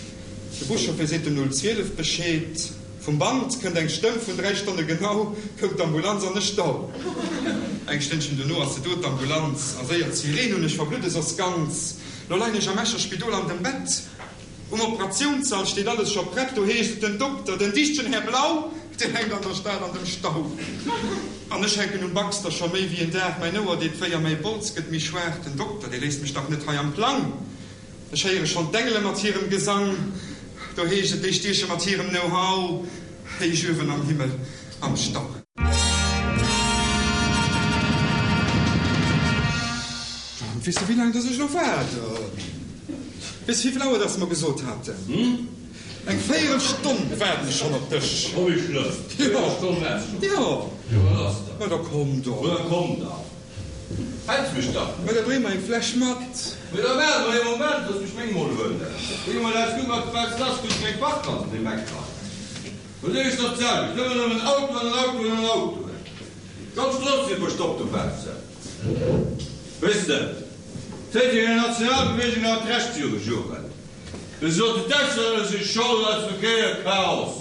de Buschauffer seet dem 012 Bescheed. Vum Band kënnt eng Stëmm, vun 3 Stonne genau koum d'Ambulanz an e Stau. Eng Stënnchen dono ass se do, d'Ambulanz, a séier d'Sireen un, ech verbludde soss ganz. Lo leien ech am Escher Spidol an dem Bett. Um Operatiounssall steet alles scho prett, do heescht et, den Dokter, den dichtegen Här Blau, deen hänkt an der Stad an dem Stau. An ech hänken um Baxter scho méi wéi en Dag, mäin Ouer deet wéi a mäi Bols gëtt méi schwaach, den Dokter, dee léisst mech dach net hei am Plang. Ech héiere schonn d'Engele mat hirem Gesang, do heescht et, déi stieche mat hirem Know-how héich uewen am Himmel am Stau. Weess de wéi laang dass ech elo waarden? Weess de wéivill Auer dass mer gesot haten? Eng véierel Stonn waarden ech schonn op dech. Oh wéi schlëmm! Véierel Stonn waars schonn? Jo. Jo wat ass da? Ma da komm dach. Ma da komm dach. Häls mech dach net. Ma da bréng mer eng Fläsch mat. Mee da waarde mer ee Moment, looss mech meng mol huelen. Wéi emol eis gutt mat Fest lass, krut ech meng Parkplaz op deem Eck hei. Lo sinn ech der d'selwecht, ëmmer nëmmen Autoen an Autoen an Autoen. D'ganz Strooss wier verstoppt dobaussen. Weess de, d'Téitenger Nationalbewegung hat Recht viru Joren, wéi se soten, d'Auslänner si Schold un eisem Verkéierchaos.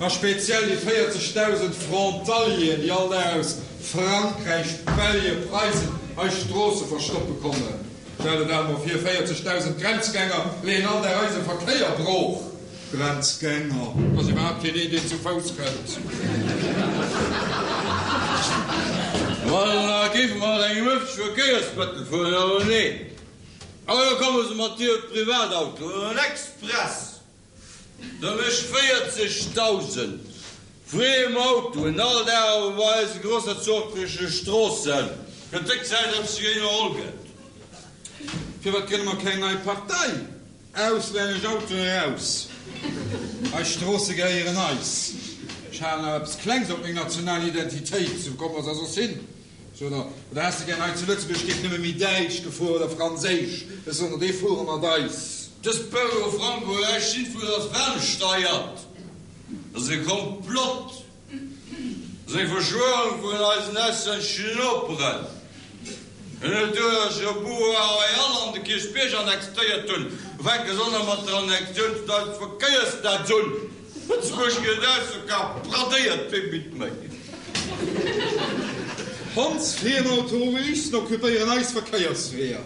A speziell déi 40.000 Frontalieren, déi all Dag aus Frankräich, Belge, Preisen eis Stroosse verstoppe kommen. Stell der dat emol vir, 40.000 Grenzgänger leeën all Dag eise Verkéier brooch. Grenzgänger, et ass iwwerhaapt keen een, deen zu Fouss kënnt. Ma da géife mer mat engem ëffentleche Verkéiersmëttel fueren, awer nee, awer da komme se mat hire Privatautoen an express. Da mécht 40.000 friem Autoen all Dag op eise grossherzogleche Stroossen. Gëtt déck Zäit, datt sech iwwerholl gëtt. Firwat grënne mer keng nei Partei? Auslännesch Autoen eraus! Eis Stroosse gehéieren eis! Ech halen awer eppes Klengs op meng national Identitéit, sou komm mer se soss hin. Oder häss de gär hei zu Lëtzebuerg géif nëmme méi Däitsch gefuer oder Franséisch? Ech soen der, déi fuere mat eis. Dës Peugeot Franco läscht jiddwer ass ferngesteiert. Dat ass e Komplott. Dat ass eng Verschwörung vun eisen auslänneschen Noperen. En huet duerch e Boulevard Royal an de Kierchbierg annexéiert hunn. Fänke se och nach mat der Annexioun vun eisem Verkéiersnetz un. Lëtzebuerg gëtt ausverkaaft, bradéiert wee bitt méi. Hondsfriem Automobilisten occupéieren eis Verkéiersweeër.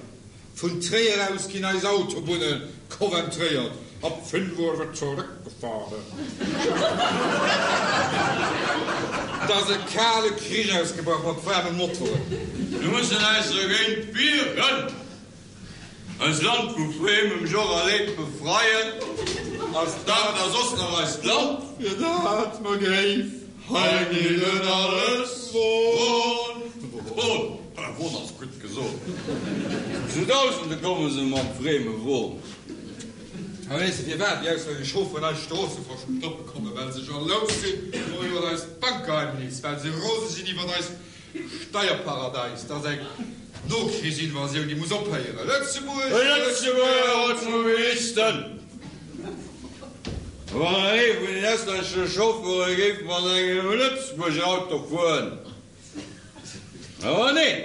Vun Tréier aus ginn eis Autobunne coventréiert. Ab 5 Uhr wird zurückgefahren. Et ass e kale Krich ausgebrach mat waarme Motoren. Mir mussen eis dergéint wieren, eist Land vu friemem Joch a Leed befreien. Ass dat da soss nach eist Land? Fir dat mer géif Hei geet et alles won, won, won ass gutt gesot. Zu Dausende komme se mam frieme Won. A weess de firwat déi auslännesch Chaufferen eis Stroosse verstoppe kommen? Well se jalous sinn iwwer eist Bankgeheimnis, well se rose sinn iwwer eist Steierparadäis. Dat ass eng Nokrichsinvasioun, déi muss ophéieren. Lëtzebuerg! Lëtzebuerger Automobilisten! Wann ee vun den auslännesche Chauffeure géif mat engem Lëtzebuerger Auto fueren. Awer nee,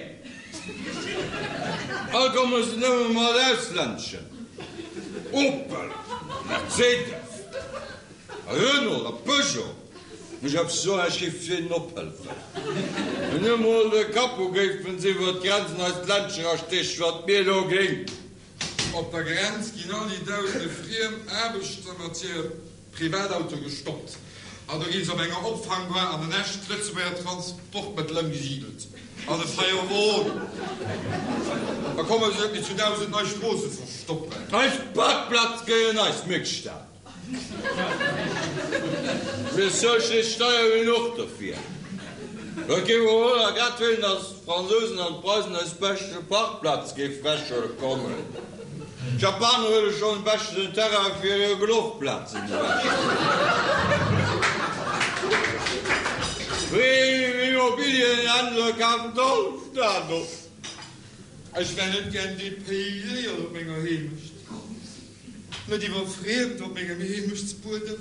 all komme se nëmme mat auslänneschen, Opel, Mercedes, Renault a Peugeot. Muss ech eppes soen, ech géif hinnen ophëllefen. Wenn emol de Capot géifen se iwwer d'Grenz an eist Ländchen erastiechen, wat mir do géing. Op der Grenz ginn all déi dausende friem Aarbechter mat hire Privatautoe gestoppt an do gi se op enger Opfangbar an en echt Lëtzebuerger Transportmëttel ëmgesidelt, an e freie Won. Da komme se net méi zu 1.000 nei Stroosse verstoppen. Eis Parkplaz gehéieren eis, mierkt d'Stad. Mir zuele Steier genuch dofir. Et géif och wonner grad wéilen, datt d'Fransousen an d'Preisen eis beschte Parkplaz géif wechhuele kommen. D'Japaner huele schonn beschten den Terrain fir hir Golfplazen ewech. D'Immobilienhändler kafen d'Alstad op. Ech wär net gär dépayséiert op menger Heemecht. Net iwwer Friemd op mengem Heemechtsbuedem.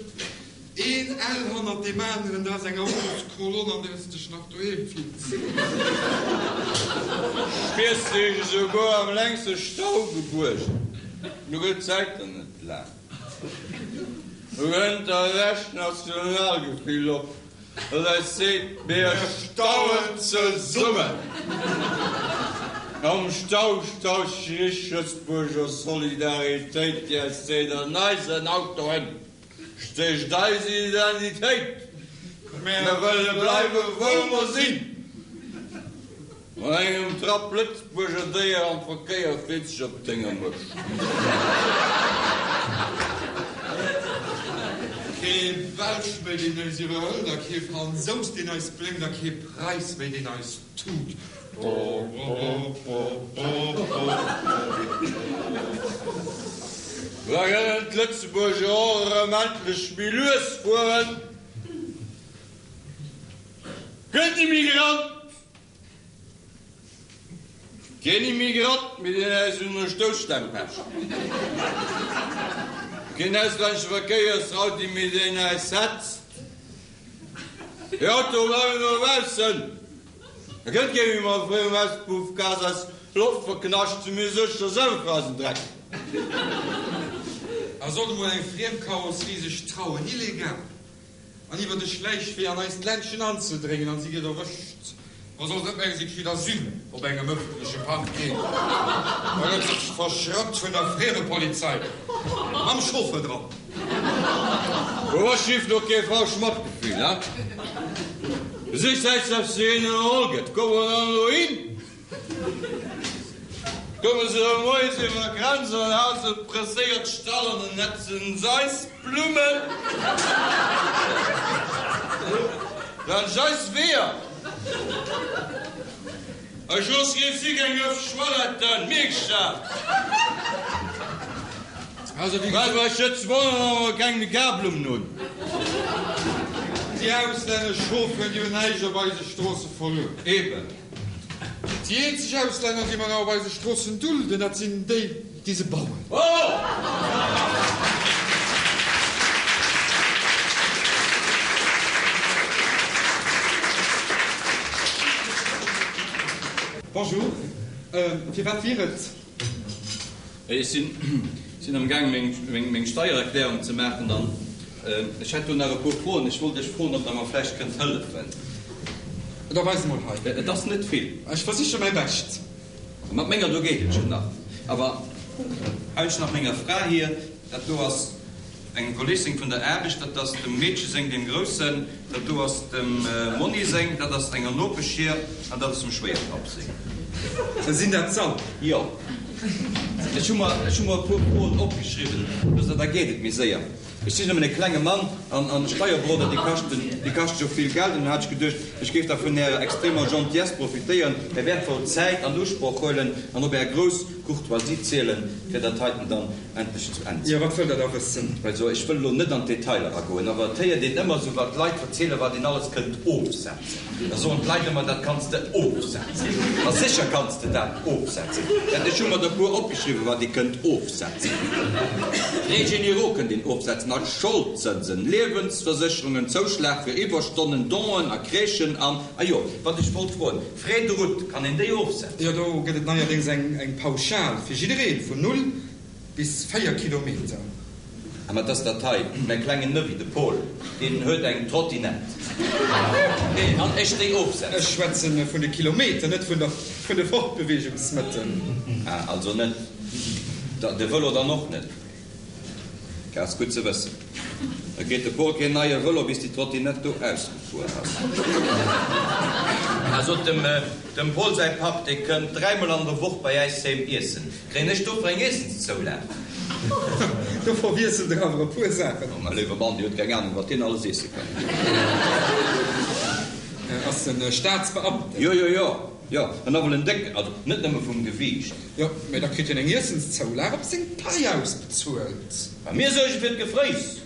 Een L hannert deem aneren, dat ass eng Autoskolonn, an där s de dech nach doheem fills. Spiers dech esouguer am längste Stau gebuergen. Nu gëtt d'Zäit der net laang. Nu kënnt der Recht Nationalgefill op, dat eis seet, Mir stauen zesummen! Am Stau staut sech Lëtzebuerger Solidaritéit, déi eis seet, An eisen Autoen stécht eis Identitéit! Mir wëlle bleiwe wou mer sinn! Mat engem Trapp Lëtzebuerger Déier am Verkéier freet sech op denger Mëscht. Kee Belsch méi deen eis iwwerhëlt a kee Fransous deen eis blénkt a kee Preis méi deen eis tut. Da kënnen d'Lëtzebuerger och erëm endlech méi lues fueren. Gëtt Immigrant! Keen Immigrant méi deen äis un der Stousstaang pecht. Keen auslännesche Verkéiersraudi méi deen äis hetzt. Déi Autoe bleiwen dobaussen. Da kënnt kee méi mat fréiem Auspuffgas eis Loft verknascht, si mir sécher selwer fir eisen Dreck. A sollt emol eng friem Karosserie sech trauen, illegal an iwwer de Schläichwee an eist Ländchen anzedréngen an si gëtt erwëscht. Ma soll se net mengen, si kritt Asyl op engem ëffentleche Parking, da gëtt se verschrappt vun der Friemepolizei mam Chauffeur dran. Wo ass schief do kee falsch Matgefühl, he? Sich säit selbst zu hinnen erholl gëtt, kommen wir dann elo hin? Komme se erëm moies iwwer d'Grenz an haen se presséiert Stall an den netzen s'eis Blummen laanscht eis Weeër. Ech looss kee Flic eng Ëff Schwalletten, mierks dat? Well bei Schëtzbronn awer keng méi Karblummen hunn. Déi auslännesch Chauffeuren, déi hunn näischt op eise Stroosse verluer. Eben. Déi eenzeg Auslänner, déi mer nach op eise Stroossen dulden, dat sinn déi, déi se bauen. Bonjour, firwat wier et? Ech sinn am gaang meng Steiererklärung ze maachen an ech hätt do nach e puer Froen. Ech wollt Iech froen, ob Der mer vläicht kënnt hëllefen. Da weis emol hei. Et ass net vill. Ech versiche mäi Bescht. Mat menger do geet et jo nach. Awer hei hunn ech nach menger Fra hir. Dat do ass engem Kolleg seng vun der Aarbecht, dat ass dem Meedche seng, deem Groussen, dat do ass dem Monni seng, dat ass enger Nopesch hir an dat ass dem Schwéierpapp seng. Sinn dat s'all? Jo. Ech hu mer, ech hu mer e puer Froen opgeschriwwen, da geet et méi séier. Ech sinn nëmmen e klenge Mann an an Steierberoder, déi kaschten, déi kaschte jo vill Geld. An dunn hat ech geduecht, ech géif da vun Ärer extremer Gentillesse profitéieren, Är wäertvoll Zäit an Usproch huelen an op Är grouss Courtoisie zielen, fir dat heiten dann endlech zu Enn ze Jo, wat wëllt Der da wëssen? Also, ech wëll elo net an d'Detailer agoen, awer et héiert een ëmmer esou, wat d'Leit verzielen, wat een alles kënnt ofsetzen. Da soen d'Leit ëmmer, dat kanns de ofsetzen. A sécher kanns de dat ofsetzen. Ech hu mer der e puer opgeschriwwen, wat ee kënnt ofsetzen. Frais généraux kënnt een ofsetzen, a Scholdzënsen, Liewensversécherungen, Zouschlag fir Iwwerstonnen, Donen a Crèchen an, a jo, wat ech wollt froen, Frais de route, kann een déi ofsetzen? Jo, do gëtt et neierdéngs eng Pauschal fir jidderee vun null Bis 4 Kilometer. A mat ass dat hei, mäi klengen Nevi, de Paul, deen huet eng Trottinett. Kann ech déi ofsetzen? Ech schwätzen vun de Kilometer, net vun der, vun de Fortbeweegungsmëttel. Ah, also net. De Vëlo dann och net? Dat ass gutt ze wëssen. Da kritt de Paul keen neie Vëlo, bis déi Trottinett do ausgefuer ass. Also dem, dem Paul säi Papp, dee kënnt dräimol an der Woch bei äis heem iessen. Kréien ech dofir eng Iessenszoulag? Do verwiesselt der awer e puer Saachen. Oh, mäi léiwe Mann, Dir hutt keng Ahnung, wat deen alles iesse kann. Ass en Staatsbeamten? Jo, jo, jo, jo, an nawell en décken, also net nëmme vum Gewiicht. Jo, mä da kritt hien eng Iessenszoulag op seng Pai ausbezuelt. A mir suerge fir d'Gefréiss.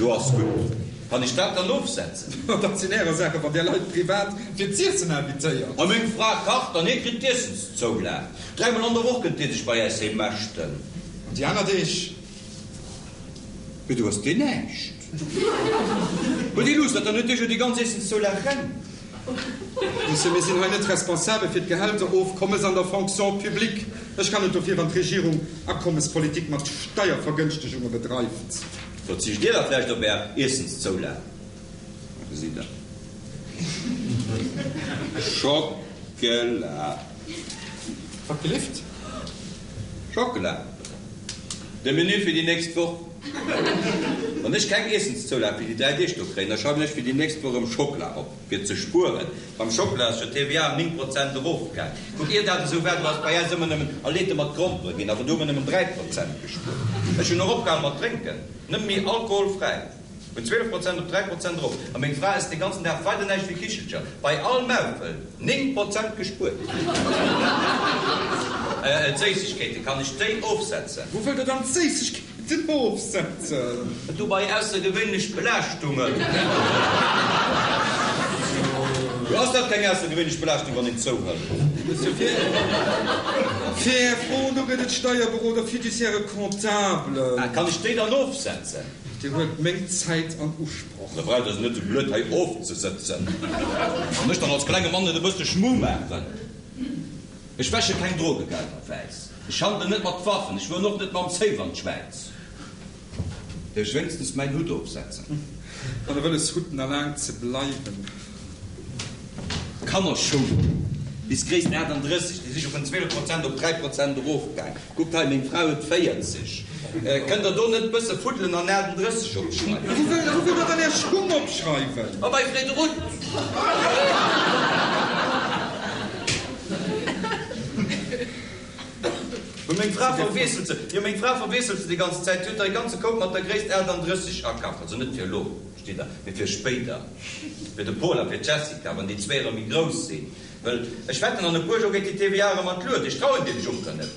Lo ass gutt. Kann ech dat dann ofsetzen? Dat sinn Ärer Saachen, wann Dir Leit privat fir z'iessen invitéiert. A meng Fra kacht an hie kritt d'Iessenszoulag. Dräimol an der Woch kënnt Dir sech bei äis heem mäschten. An déi aner Deeg? Mee du hues deen näischt. Huet ee Luuss, dann huet dee jo déi ganz Iessenszoulag reng. Monsieur, mir sinn hei net responsabel fir d'Gehälterofkommes an der Fonction publique. Ech kann net dofir, wann d'Regierung Akommespolitik mat Steiervergënschtegunge bedreift. Verzicht Dir da vläicht op Är Iessenszoulag? Gesitt Der. Schockela. Wat gelift? Schockela. De Menü fir déi nächst Woch. Wann ech keng Iessenszoulag fir déi 3 Deeg do kréien, da schreiwen ech fir déi nächst Woch erëm Schockela op, fir ze spueren. Beim Schockela ass jo d'TVA ëm 9 Prozent erofgaang. Kuck, ier dat esou war, do ass bei äis ëmmer nëmmen Alete mat Grompere ginn, awer do hu mer nëmmen 3 Prozent gespuert. Ech hunn och opgehal mat drénken, nëmme méi alkoholfräi. Vun 12 Prozent op 3 Prozent erof. A meng Fra ësst de ganzen Dag weider näischt wéi Kichelcher. Bei all Maufel 9 Prozent gespuert. D'Séissegkeete, kann ech déi ofsetzen? Wou wëllt Der dann d'Séissegkeeten ofsetzen? Du bei aussergewéinlech Belaaschtungen. Jo, ass dat keng aussergewéinlech Belaaschtung, wann een zouhëlt? Monsieur, fir Är Fro no gëtt et Steierberoder, Fiduciaire, Comptable. Kann ech déi dann ofsetzen? Dir huelt meng Zäit an Usproch. Da braucht Der se net esou blöd hei ofzesëtzen an mech dann als klenge Mann net e bësse Schmu maachen. Ech wäsche keng Drogegelder wäiss, ech handelen net mat Waffen, ech fueren och net mam Safe an d'Schwäiz. Däerf ech wéinstens mäin Hutt ofsetzen? Wann Der wëlles hutt, na laang ze bleiwen. Kannerschoul bis Gréisst 38, déi si scho vun 12 Prozent op 3 Prozent erofgaang. Kuckt hei, meng Fra huet 40. Kënnt der do net bësse fuddelen an 38 opschreiwen? Wou wëllt der dann är Schung opschreiwen? Oh, bei Frédrutt! Mä meng Fra verwiesselt se, jo, meng Fra verwiesselt se déi ganz Zäit. Si huet der e ganze Koup mat der Gréisst 38 akaf. Also net fir elo, versteet Der, mee fir spéider. Fir de Paul a fir d'Jessica, wann déi zwee erëm méi grouss sinn. Well ech wetten, an e puer Joer geet déi TVA erëm an d'Luet. Ech trauen deem Juncker net.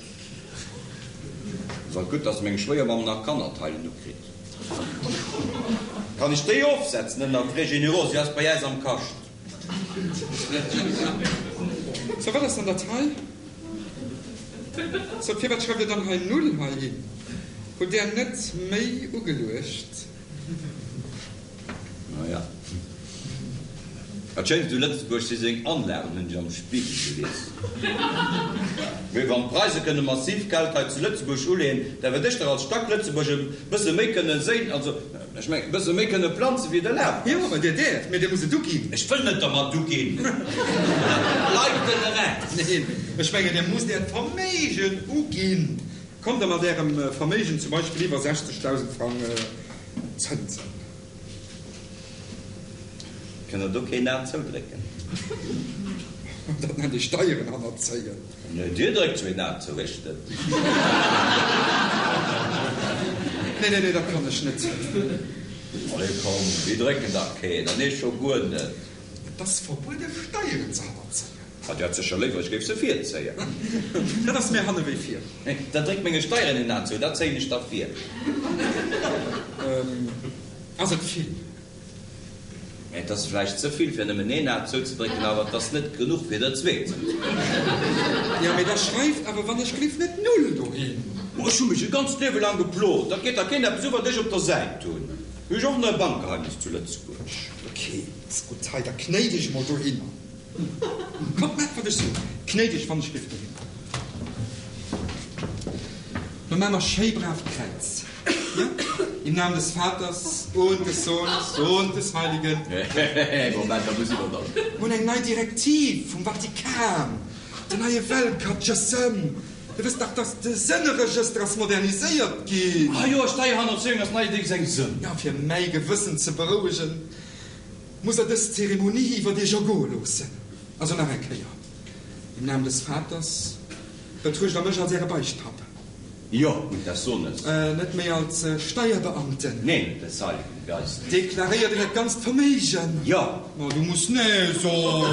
Ass alt gutt, dass meng Schwéiermamm nach Kannerteilen ukritt. Kann ech déi ofsetzen ënner Frais généraux? Si ass bei äis am Kascht. Sou, wat ass dann dat hei? Sou, firwat schreift Dir dann hei Null heihin? Hutt Där net méi ugeluecht? Naja. Dat Schéinst u Lëtzebuerg si seng Anlagen, hunn ech am Spiegel gelies. Mee wann d'Preise kënne massiv Geld hei zu Lëtzebuerg uleeën, da wäert ech dach als Stack-Lëtzebuerg e bësse méi kënne séin, also ech mengen, e bësse méi kënne planzen, wéi et erlaabt ass. Jo, Dir däerft, mee Dir musst et uginn. Ech wëll net dermat uginn. Dat bleift en Recht. Neen, ech mengen, Dir musst Äert Verméigen uginn. Kommt Der mat Ärem Verméigen zum Beispill iwwer 60.000 Frang Zënsen. Kënnt der do keen Aen zoudrécken? Dat nennt ee Steieren hannerzéien. Nee, Dir dréckt zwee Aen zou, ech net. Nee, nee, nee, dat kann ech net. Allez, komm, mir drécken dach keen, an ech scho guer net. Et ass verbuede Steieren ze hannerzéien. Ah, Dir hätt sécher léiwer, ech géif se virzéien. Dat ass méi hanne wéi vir. Da dréck menge Steieren een Aen zou, dat zéien ech da vir. Ass et vill? Et ass vläicht ze vill, fir nëmmen een A zouzedrécken, awer et ass net genuch, fir der zwee zouzedrécken. Jo, mee da schreift awer wann ech gelift net Null dohin. Ma ech hu mech e ganzt Liewe laang geplot, dat geet da keen eppes u, wat ech op der Säit hunn. Hu ech och nach e Bankgeheimnis zu Lëtzebuerg. Ok, ass gutt. Hei, da knéi dech emol dohinner. Kommt, maacht wat ech soen. Knéi dech wann ech gelift dohinner. Lo maache mer schéi brav d'Kräiz. Jo, Im Namen des Vaters und des Sohnes und des Heiligen. Moment, da muss iwwer dann. Mir hunn eng nei Direktiv vum Vatikan, den neie Weltkatechëssem. Dir wësst dach, dass de Sënneregëster ass moderniséiert ginn. Ah jo, Steierhannerzéiung ass neierdéngs eng Sënn. Jo, fir mäi Gewëssen ze berouegen, muss Der dës Zeremonie iwwert Iech ergoe loossen. Also nach eng Kéier, Im Namen des Vaters, betruecht Der mech als Äre Beichtpapp. Jo, und des Sohnes. Net méi als Steierbeamten. Neen, und des Heiligen Geistes. Deklaréiert Der Äert ganzt Verméigen? Jo. Ma du muss nee soen.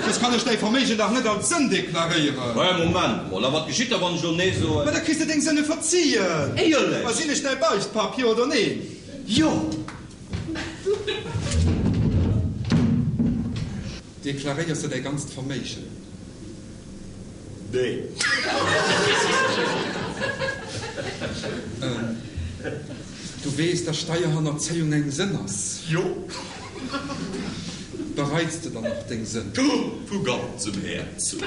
Soss kann ech däi Verméigen dach net als Sënn deklaréieren. Hä, Moment mol, a wat geschitt da, wann ech elo nee soen? Ma da kriss de deng Sënne verzien. Éierlech? Ma sinn ech däi Beichtpapp, jo oder neen? Jo. Deklaréiers de däi ganzt Verméigen? Nee. weess, dass Steierhannerzéiung eng Sënn ass? Jo. Bereits de dann och deng Sënn? Vu ganzem Häerzen.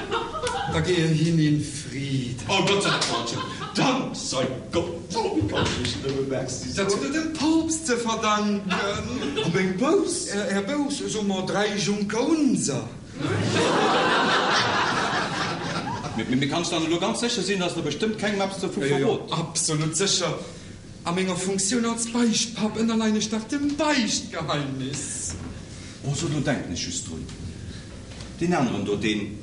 Da gehe hin in Frieden. Oh Gott sei Dank, Dank sei Gott, oh kann ech nëmme Merci soen. Dat hutt Der dem Poopst ze verdanken. A meng Bouss? Är Bouss, soe mer 3 Juncker-Unser. Mee kanns dann elo ganz sécher sinn, dass Der bestëmmt kengem eppes dovu verrot? Jo, jo, absolut sécher. A menger Funktioun als Beichtpapp ënnerleien ech dach dem Beichtgeheimnis. Oh, so, do denken ech just drun, deen aneren do, deen,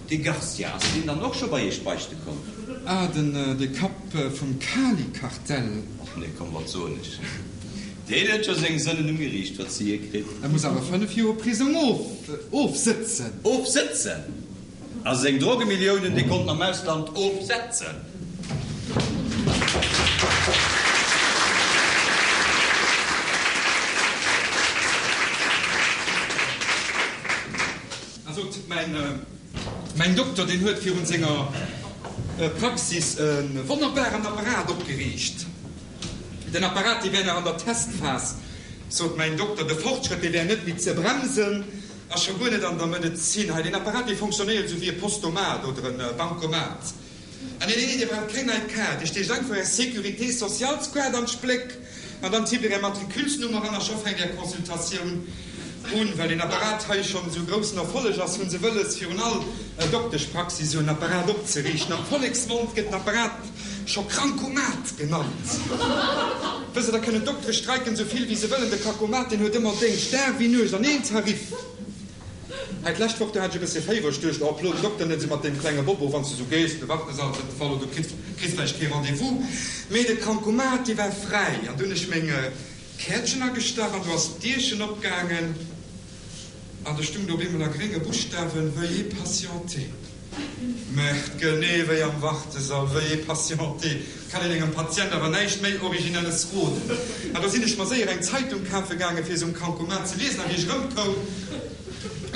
dee Garcia, ass deen dann och scho bei Iech beichte komm? Ah, den, de Kapp vum Kali-Kartell. Och nee, komm, wat soen ech, deen huet scho seng Sënnen um Geriicht verzie kritt. E muss awer 5 Joer Prisong of, ofsëtzen. Ofsëtzen? A seng Drogemilliounen, déi konnt en am Ausland ofsetzen. A sot, Mäin Dokter, deen huet virun senger Praxis e wonnerbaren Apparat opgeriicht. Den Apparat, dee wär nach an der Testphas, sot mäin Dokter. De Fortschrëtt, dee wär net méi ze bremsen. A scho guer net an der Medezin. Hei, deen Apparat, dee fonctionnéiert esou wéi e Postomat oder e Bancomat. Ah, nee, nee, nee, Dir braucht keng nei Kaart. Dir stiecht einfach Är Sécurité socialskaart an d'Spléck an dann tippt Dir Är Matriculesnummer an a scho fänkt Är Consultatioun un. Well deen Apparat hei schonn esou groussen Erfolleg ass, hu se wëlles, virun all Dokteschpraxis esou en Apparat opzeriichten. Am Volleksmond gëtt den Apparat Scho Krankomat genannt. Wësst Der, da kënnen d'Doktere streiken esou vill wéi se wëllen, de Krakomat deen huet ëmmer Déngscht, Dag wéi Nuecht an een Tarif. Hei d'lescht Woch, do hat ech e bëssche Féiwer, ech duecht, oh plo den Dokter net esou mat deem klenge Bobo, wann s de esou gees, de Wartesall ass net voll oder du kriss kriss vläicht kee Rendez-vous. Mee de Krankomat dee war fräi an du hunn ech meng Käertchen agestach an do ass d'Dierchen opgaangen an do stung do op eemol a grénge Buschtawen, Veuillez patienter. Merde, genee wéi am Wartesall, veuillez patienter, kann een engem Patient awer näischt méi Originelles roden. An do sinn ech mer séier eng Zeitung kafe gaangen, fir se um Kankomat ze liesen, a wéi ech erëmkoum,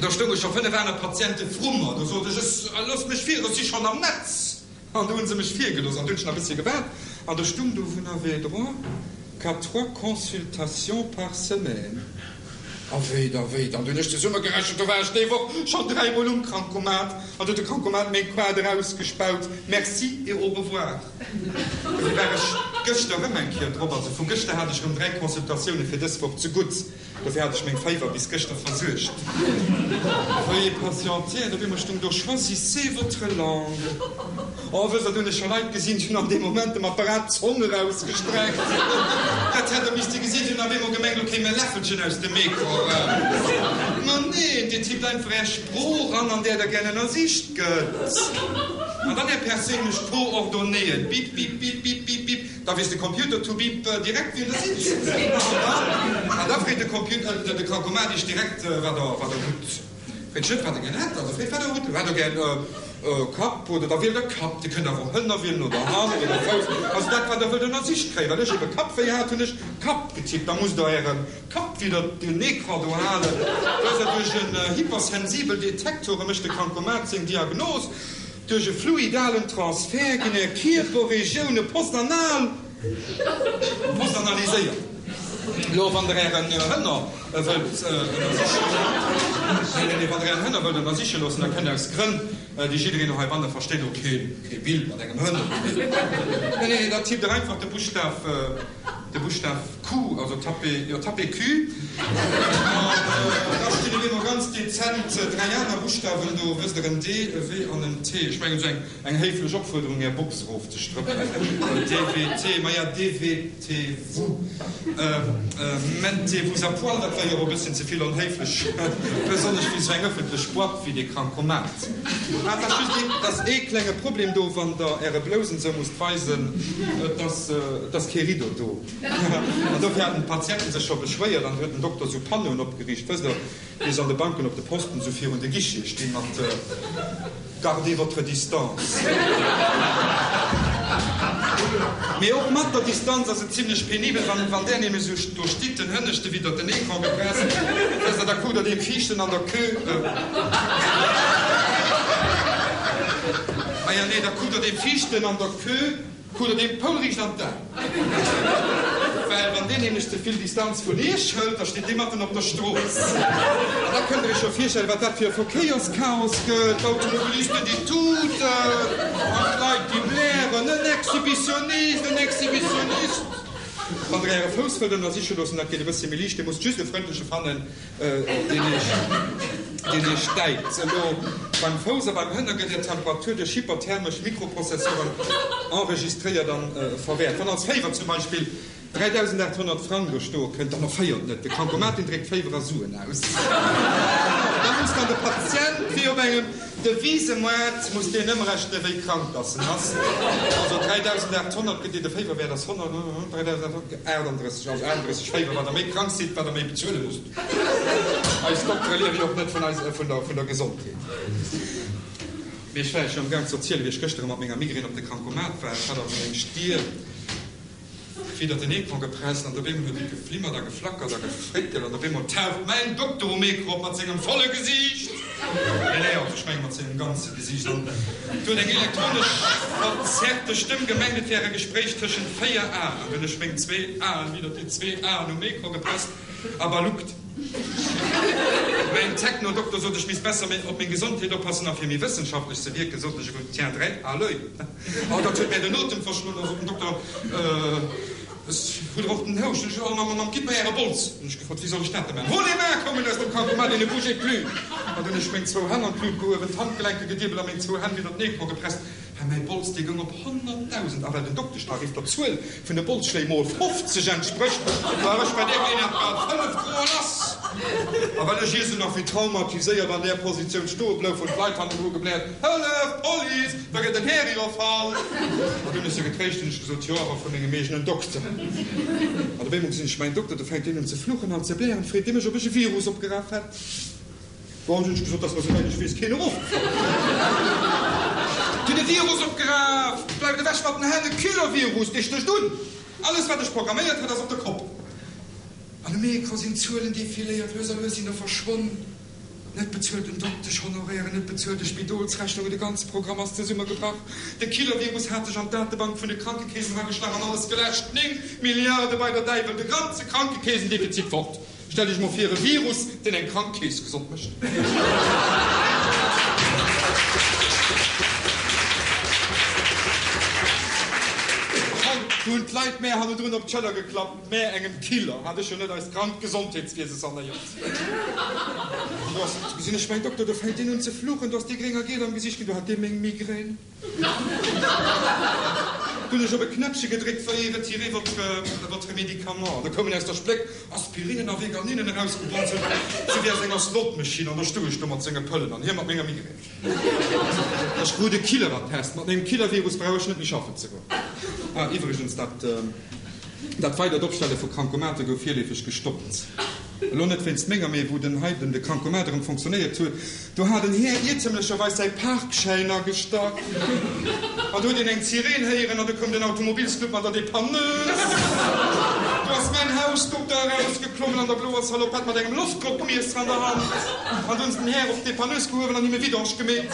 do stounge scho 5 aner Patiente vru mer. Do sot ech, ech, loosst mech vir, ech si schonn am Netz. An do hu se mech virgelooss, an du hunn ech nach e bëssche gewaart, an do stung do, Vous n'avez droit qu'à trois consultations par semaine. A wéi da wéi dann? Du hunn ech zesummegerechent, do war ech déi Woch schonn dräimol um Krankomat an du huet de Krankomat meng Quaart erausgespaut. Merci et au revoir. Dofir war ech gëschter erëm eng Kéier drop. Also vu gëschter hat ech erëm 3 Consultatioune fir dës Woch zegutt. Dofir hat ech meng Féiwer bis gëschter versuergt. Veuillez patienter, an op eemol stung do, Choisissez votre langue. Oh, wësst der, do hunn ech scho Leit gesinn, déi hunn an deem Moment dem Apparat d'Zong erausgestreckt. Dat hätt der misste gesinn, déi hunn op eemol gemengt, do kéim e Läffelchen aus dem Ecran eraus. Ma neen, Dir tippt einfach Är Sprooch an, an där Der gär ënnersicht gëtt. An dann Är perséinlech Coordonnéeën. Bip, bip, bip, bip, bip, bip. Da weess de Computer to bip direkt, wien Der sidd. An da freet de Computer, de Krankomat Iech direkt, wat Der, wat Der hutt. Freet Iech net, wat Der gär hätt, also freet, wat Der hutt. Hätt Der gär Kapp oder da wielt Der Kapp. Dir kënnt awer och Hënner wielen oder Hand oder Fouss. Also dat, wat Der wëllt ënnersicht kréien. Well ech ebe Kappwéi hat, hunn ech Kapp getippt. Da musst Der Äre Kapp widder den Ecran do halen. Do ass Der duerch en hypersensibel Detektor, mécht de Krankomat seng Diagnos. Duerch e fluidalen Transfert ginn är Kierperregioune postanal postanaliséiert. Lo, wann der ären Hënner wëllt ënnersiche Nee, nee, nee, wann der ären Hënner wëllt ënnersiche loossen, da kënnt aus Grënn, déi jiddereen och heibanne versteet, och kee Bild mat engem Hënner. Nee, nee, da tippt der einfach de Buschtaf. De Buschtaf Q, also tapez, jo, tapez Q, an da stinn op eemol ganz dezent 3 aner Buschtawen do, wësst der, en D, e W an en T. Ech mengen, esou eng, eng héiflech Opfuerderung, Är Box erofzestrëppelen. D, W, T, maja, D, W, T, vous mettez-vous à poil, dat wär jo och e bësschen ze vill onhéiflech, besonnesch fir esou eng ëffentlech Boîte wéi dee Krankomat. Ah, et ass just ee, et ass ee klenge Problem do, wann Der Äre Blousen esou musst weisen, et ass, et ass kee Rideau do. An dofir haten d'Patienten sech scho beschwéiert an du huet den Dokter esou Panneauen opgeriicht, wësst Der, wéi se an de Banken op de Posten esou virun de Guichete stinn mat Gardez votre distance. Mee och mat der Distanz ass et zimlech penibel, wann, wann där nämlech esou do stitt, den Hënneschte widder den Ecran gepresst, wësst Der, da kuckt Der deem Viischten an der Queue, ah ja, nee, da kuckt Der deem Viischten an der Queue, kuckt Der deem poulriicht an d'Aen. Well wann deen nämlech ze vill Distanz vun Iech hëlt, da steet dee matten op der Strooss. An da kënnt der Iech scho virstellen, wat dat fir e Verkéierschaos gëtt, d'Automobilisten, déi tuten, an d'Leit, déi blären, En Exhibitionist, en Exhibitionist! Wann der Äre Fouss wëllt ënnersiche loossen, dat geet e bëssche méi liicht, Dir musst just e frëndleche fannen, deen Iech, deen Iech däit. Elo beim Fouss a beim Hënner gëtt Är Temperatur duerch hyperthermesch Mikroprozessoren enregistréiert an verwäert. Wann als Féiwer zum Beispill 3.800 Frang do stoe kënnt, dann erféiert net. De Krankomat, deen dréckt Féiwer a Suen aus. Da muss dann de Patient wéi op engem Devisemoart muss deen ëmrechnen, wéi krank dass en ass. Also 3.800 gëtt dir de Féiwerwäert ass 100, 3.838, also 38 Féiwer. Wat der méi krank sidd, wat der méi bezuele musst. Eis Doktere liewe jo och net vun eis, vun der, vun der Gesondheet. Mee ech war iech jo am Gaang ze erzielen, wéi ech gëschter mat menger Migraine op de Krankomat war. Ech hat also meng Stier widder den Ecran gepresst an op eemol huet et geflimmert a geflackert a gefréckelt an op eemol taucht mäin Dokter um Ecran op mat sengem volle Gesiicht, nee, nee, also ech menge mat sengem ganze Gesiicht an du huet eng elektronesch verzerrte Stëmm gemengt, et wär e Gespréich tëschent 4 Aen an du hunn ech meng zwee Aen widder déi zwee Aen um Ecran gepresst a baluckt. Mäin Techno-Dokter sot, ech misst besser op meng Gesondheet oppassen a fir méi wëssenschaftlech ze wierken, sot ech, je vous tiendrai à l'oeil. Oh, dat huet mär den Otem verschloen, da sot den Dokter, Ech hu der och den Houscht. Ech, Oh, Mamm, Mamm, gitt mer Äre Bols. Hunn ech gefrot, Wéi soll ech dat da maachen? Hol les mains koumen aus dem Krankomat et ne bougez plus. An dunn ech meng zwou Hänn an d'Lut gehuewen, d'Handgelenke gediebelt a meng zwou Hänn widder den Ecran gepresst. Hä, mäi Bols, dee goung op 100.000, a well den Dokteschtarif der Zuel vun de Bolsschléi mol 50 entsprécht, war ech bei där Geleeënheet bal 5 Groe lass. A well ech ier sou nach wéi traumatiséiert an där Positioun stoe blouf, hunn d'Leit hannendru gebläert, Hëllef, Police, da gëtt den Här iwwerfall! An dunn ech se getréischt, hunn ech gesot, Jo, awer vu mengem eegenen Dokter. An op eemol gesinn ech mäin Dokter, do fänkt deen un ze fluchen an ze blären, freet dee mech, ob ech e Virus opgeraf hätt. Bon, hunn ech gesot, dass mer souwäit ech weess keen erofgefall ass. Hunn e Virus opgeraf! Bleift ewech mat den Hänn, e Killer-Virus, dee stécht un! Alles wat ech programméiert hat ass op de Kopp. An um Ecran sinn d'Zuelen defiléiert, lues a lues sinn der verschwonn. Net bezuelten Dokteschhonorairen, net bezuelte Spidolsrechnungen, de ganze Programm ass zesummegebrach. De Killer-Virus hat sech an d'Datebank vun de Krankekeesen erageschlach an alles geläscht. 9 Milliarde bei der Däiwel, de ganze Krankekeesendefizit fort! Stellt Iech mol vir, e Virus, deen eng krank Kees gesond mécht. Do hunn d'Leit mär hannendrun op d'Schëller geklappt, Mä engem Killer hat ech jo net eist krankt Gesondheetswiese sanéiert. An do ass, gesinn ech mäin Dokter, do fänkt deen un ze fluchen, do ass dee gréng a giel am Gesiicht ginn, do hat dee meng Migrän. Du hunn ech op e Knäppche gedréckt, Veuillez retirer votre, votre médicament. Da koumen aus der Spléck Aspirinen a Veganinen erausgebonzelt, sou wéi aus enger Slotmaschinn. An da stoung ech do mat senge Pëllen an hie mat menger Migrän. Ech krut e Killerattest. Mat mengem Killervirus brauch ech net méi schaffen ze goen. Ah, iwwregens, dat, dat weidert Opstelle vu Krankomate gouf virleefeg gestoppt. Elo net wéinst menger, mee wou den hei den de Krankomat erëm fonctionnéiert huet, do hat en Här iertemlecherweis säi Parkschäin agestach an do huet een eng Sireen héieren an du koum den Automobilsclub mat der Dépanneuse. Do ass mäin Hausdokter erausgeklommen an der bloer Salopette mat engem Loftdrockmiesser an der Hand an du hunn se den Här op d'Dépanneuse gehuewen an him e Vidange gemeet.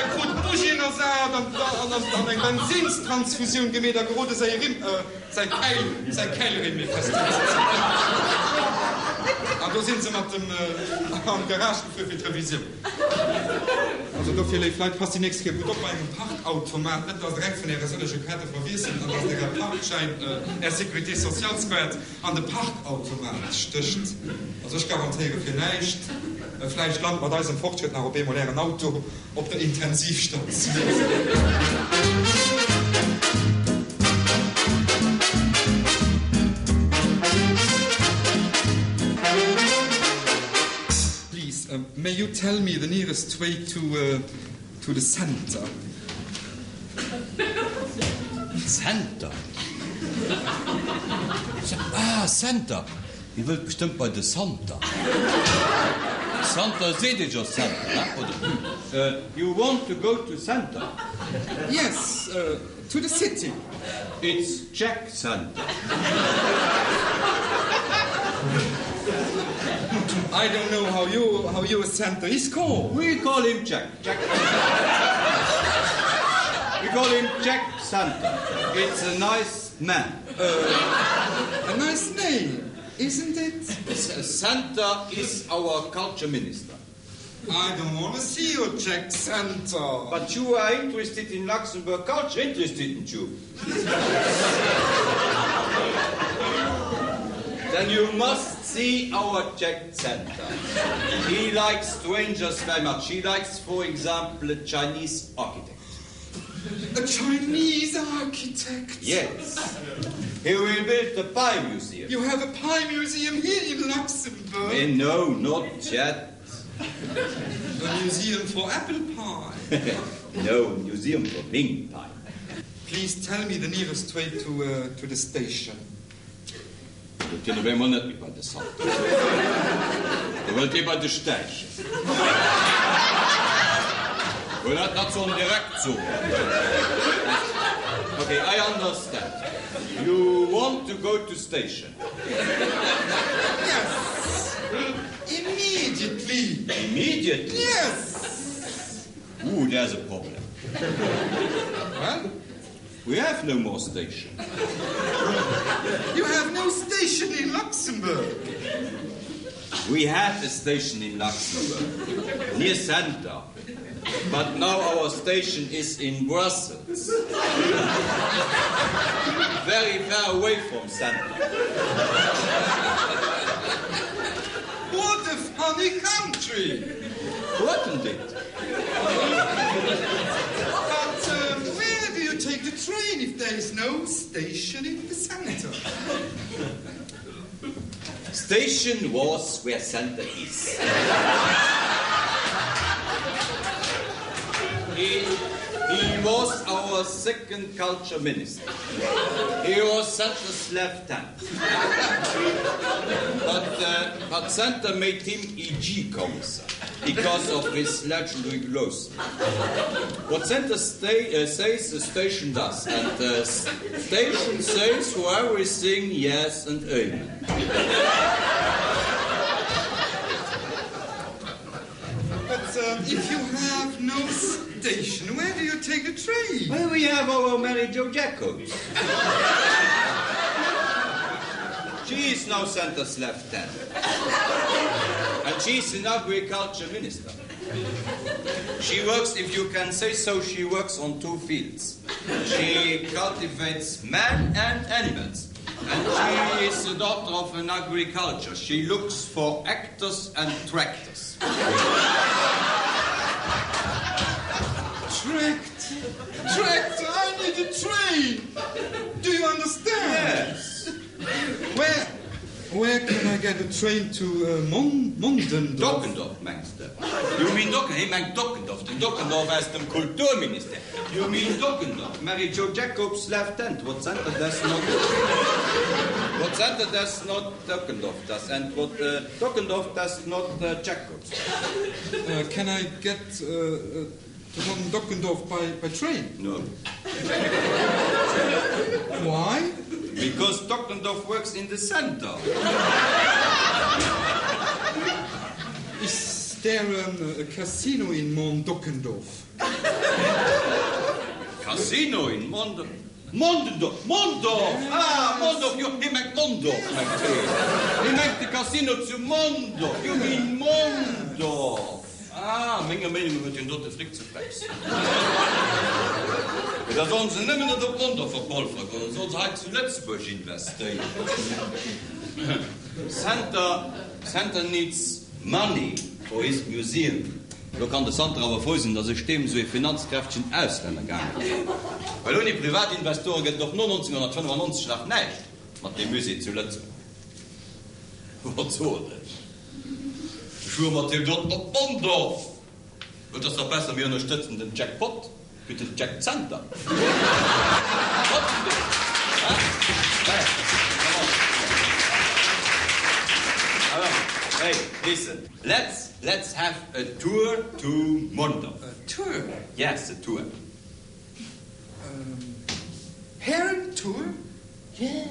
E krut d'Bugien ersat an eng Bensinstransfusioun gemeet a gerode säi Rimm. Säi Käil, säi Käilrimm méi fest unzezéien. An do sinn se mat dem an d'Garage gefuer fir d'Revisioun. Also dofir, léif Leit, passt déi nächst Kéier gutt op bei engem Parkautomat, net dass der eng vun äre sëllege Kaarte verwiesselt an dass der är Parkschäin, är Sécurité socialskaart an de Parkautomat stécht. Also ech garantéiere fir näischt, vläicht lant mat eisem Fortschrëtt nach op eemol ären Auto Op der Intensivstatioun. Please, may you tell me the nearest way to to the center? Center? Ah, Center! Dir wëllt bestëmmt bei de Santer. Santer seet ee jo Center, he, oder? You want to go to Center? Yes, to the city. It's Jack Center. I don't know how you, how your center is called. We call him Jack. Jack. We call him Jack. Santer. It's a nice man. A nice name, isn't it? Santer is our culture minister. I don't want to see your Jack Santer. But you are interested in Luxembourg culture, interested in you. Then you must see our Jack Center. He likes strangers very much. He likes, for example, a Chinese architect. A Chinese architect? Yes. He will build the pie museum. You have a pie museum here in Luxembourg? Eh, no, not yet. A museum for apple pie? No, museum for wing pie. Please tell me the nearest way to, uh, to the station. Wëllt hien op eemol net méi bei de Salto. Do wëllt hie bei de Stäichen. Well dat dat soll en direkt soen. Ok, I understand. You want to go to station. Yes. Immediately. Immediately? Yes. Ooh, there's a problem. Well? We have no more station. You have no station in Luxembourg. We had a station in Luxembourg, near center. But now our station is in Brussels. Very far away from center. What a funny country! Wasn't it? But um, where do you take the train if there is no station in the center? Station was where center is. He, he was our second culture minister. He was center's left hand. But, uh, but center made him EG commissar because of his legendary growth. What center sta uh, says the station does, and the station says for everything yes and amen. But uh, if you have no station, where do you take the train? Well, we have our Mary Jo Jacobs. She is now center's left hand. And she's an agriculture minister. She works, if you can say so, she works on two fields. She cultivates men and animals. And she is the daughter of an agriculture. She looks for actors and tractors. Tractor, tractor, I need a train. Do you understand? Yes. Where, where can I get a train to uh, Mon Mondendorf? Dockendorf mengs de? You mean Docken, hie mengt Dockendorf, den Dockendorf aus dem Kulturministère. You mean Dockendorf, Mary Jo Jacobs left hand, what center does not, what center does not Dockendorf does, and what uh, Dockendorf does not uh, Jacobs. Uh, can I get uh, uh, to Mon Dockendorf by, by train? No. Why? Because Dockendorf works in the center. Is there um, a casino in Mont Dockendorf? Casino in Mont Mondendorf? Mondorf! Ah, Mondorf, jo, hie mengt Mondorf, mengt hien. Hie mengt de Casino zu Mondorf. You mean Mondorf. Ah, menger Meenung no huet hien do de Fric ze flex. Mee da sollen se nëmmen net op Mondorf verpolfere goen, sollen se hei zu Lëtzebuerg investéieren. Center, Center needs money for his museum. Lo kann de Santer awer frou sinn, datt ech deem esou ee finanzkräftegen Auslänner gaangen ass. Well ouni Privatinvestore gëtt et och no 1995 nach näischt mat deem Musée zu Lëtzebuerg. Wat soen ech? Ech fuere mat deem doten op Mondorf! Et ass dach besser mir ënnerstëtzen den Jack Pot wéi den Jack Center. Hey, listen, let's let's have a tour to Mondorf. A tour? Yes, a tour. Um, harem tour? Yes.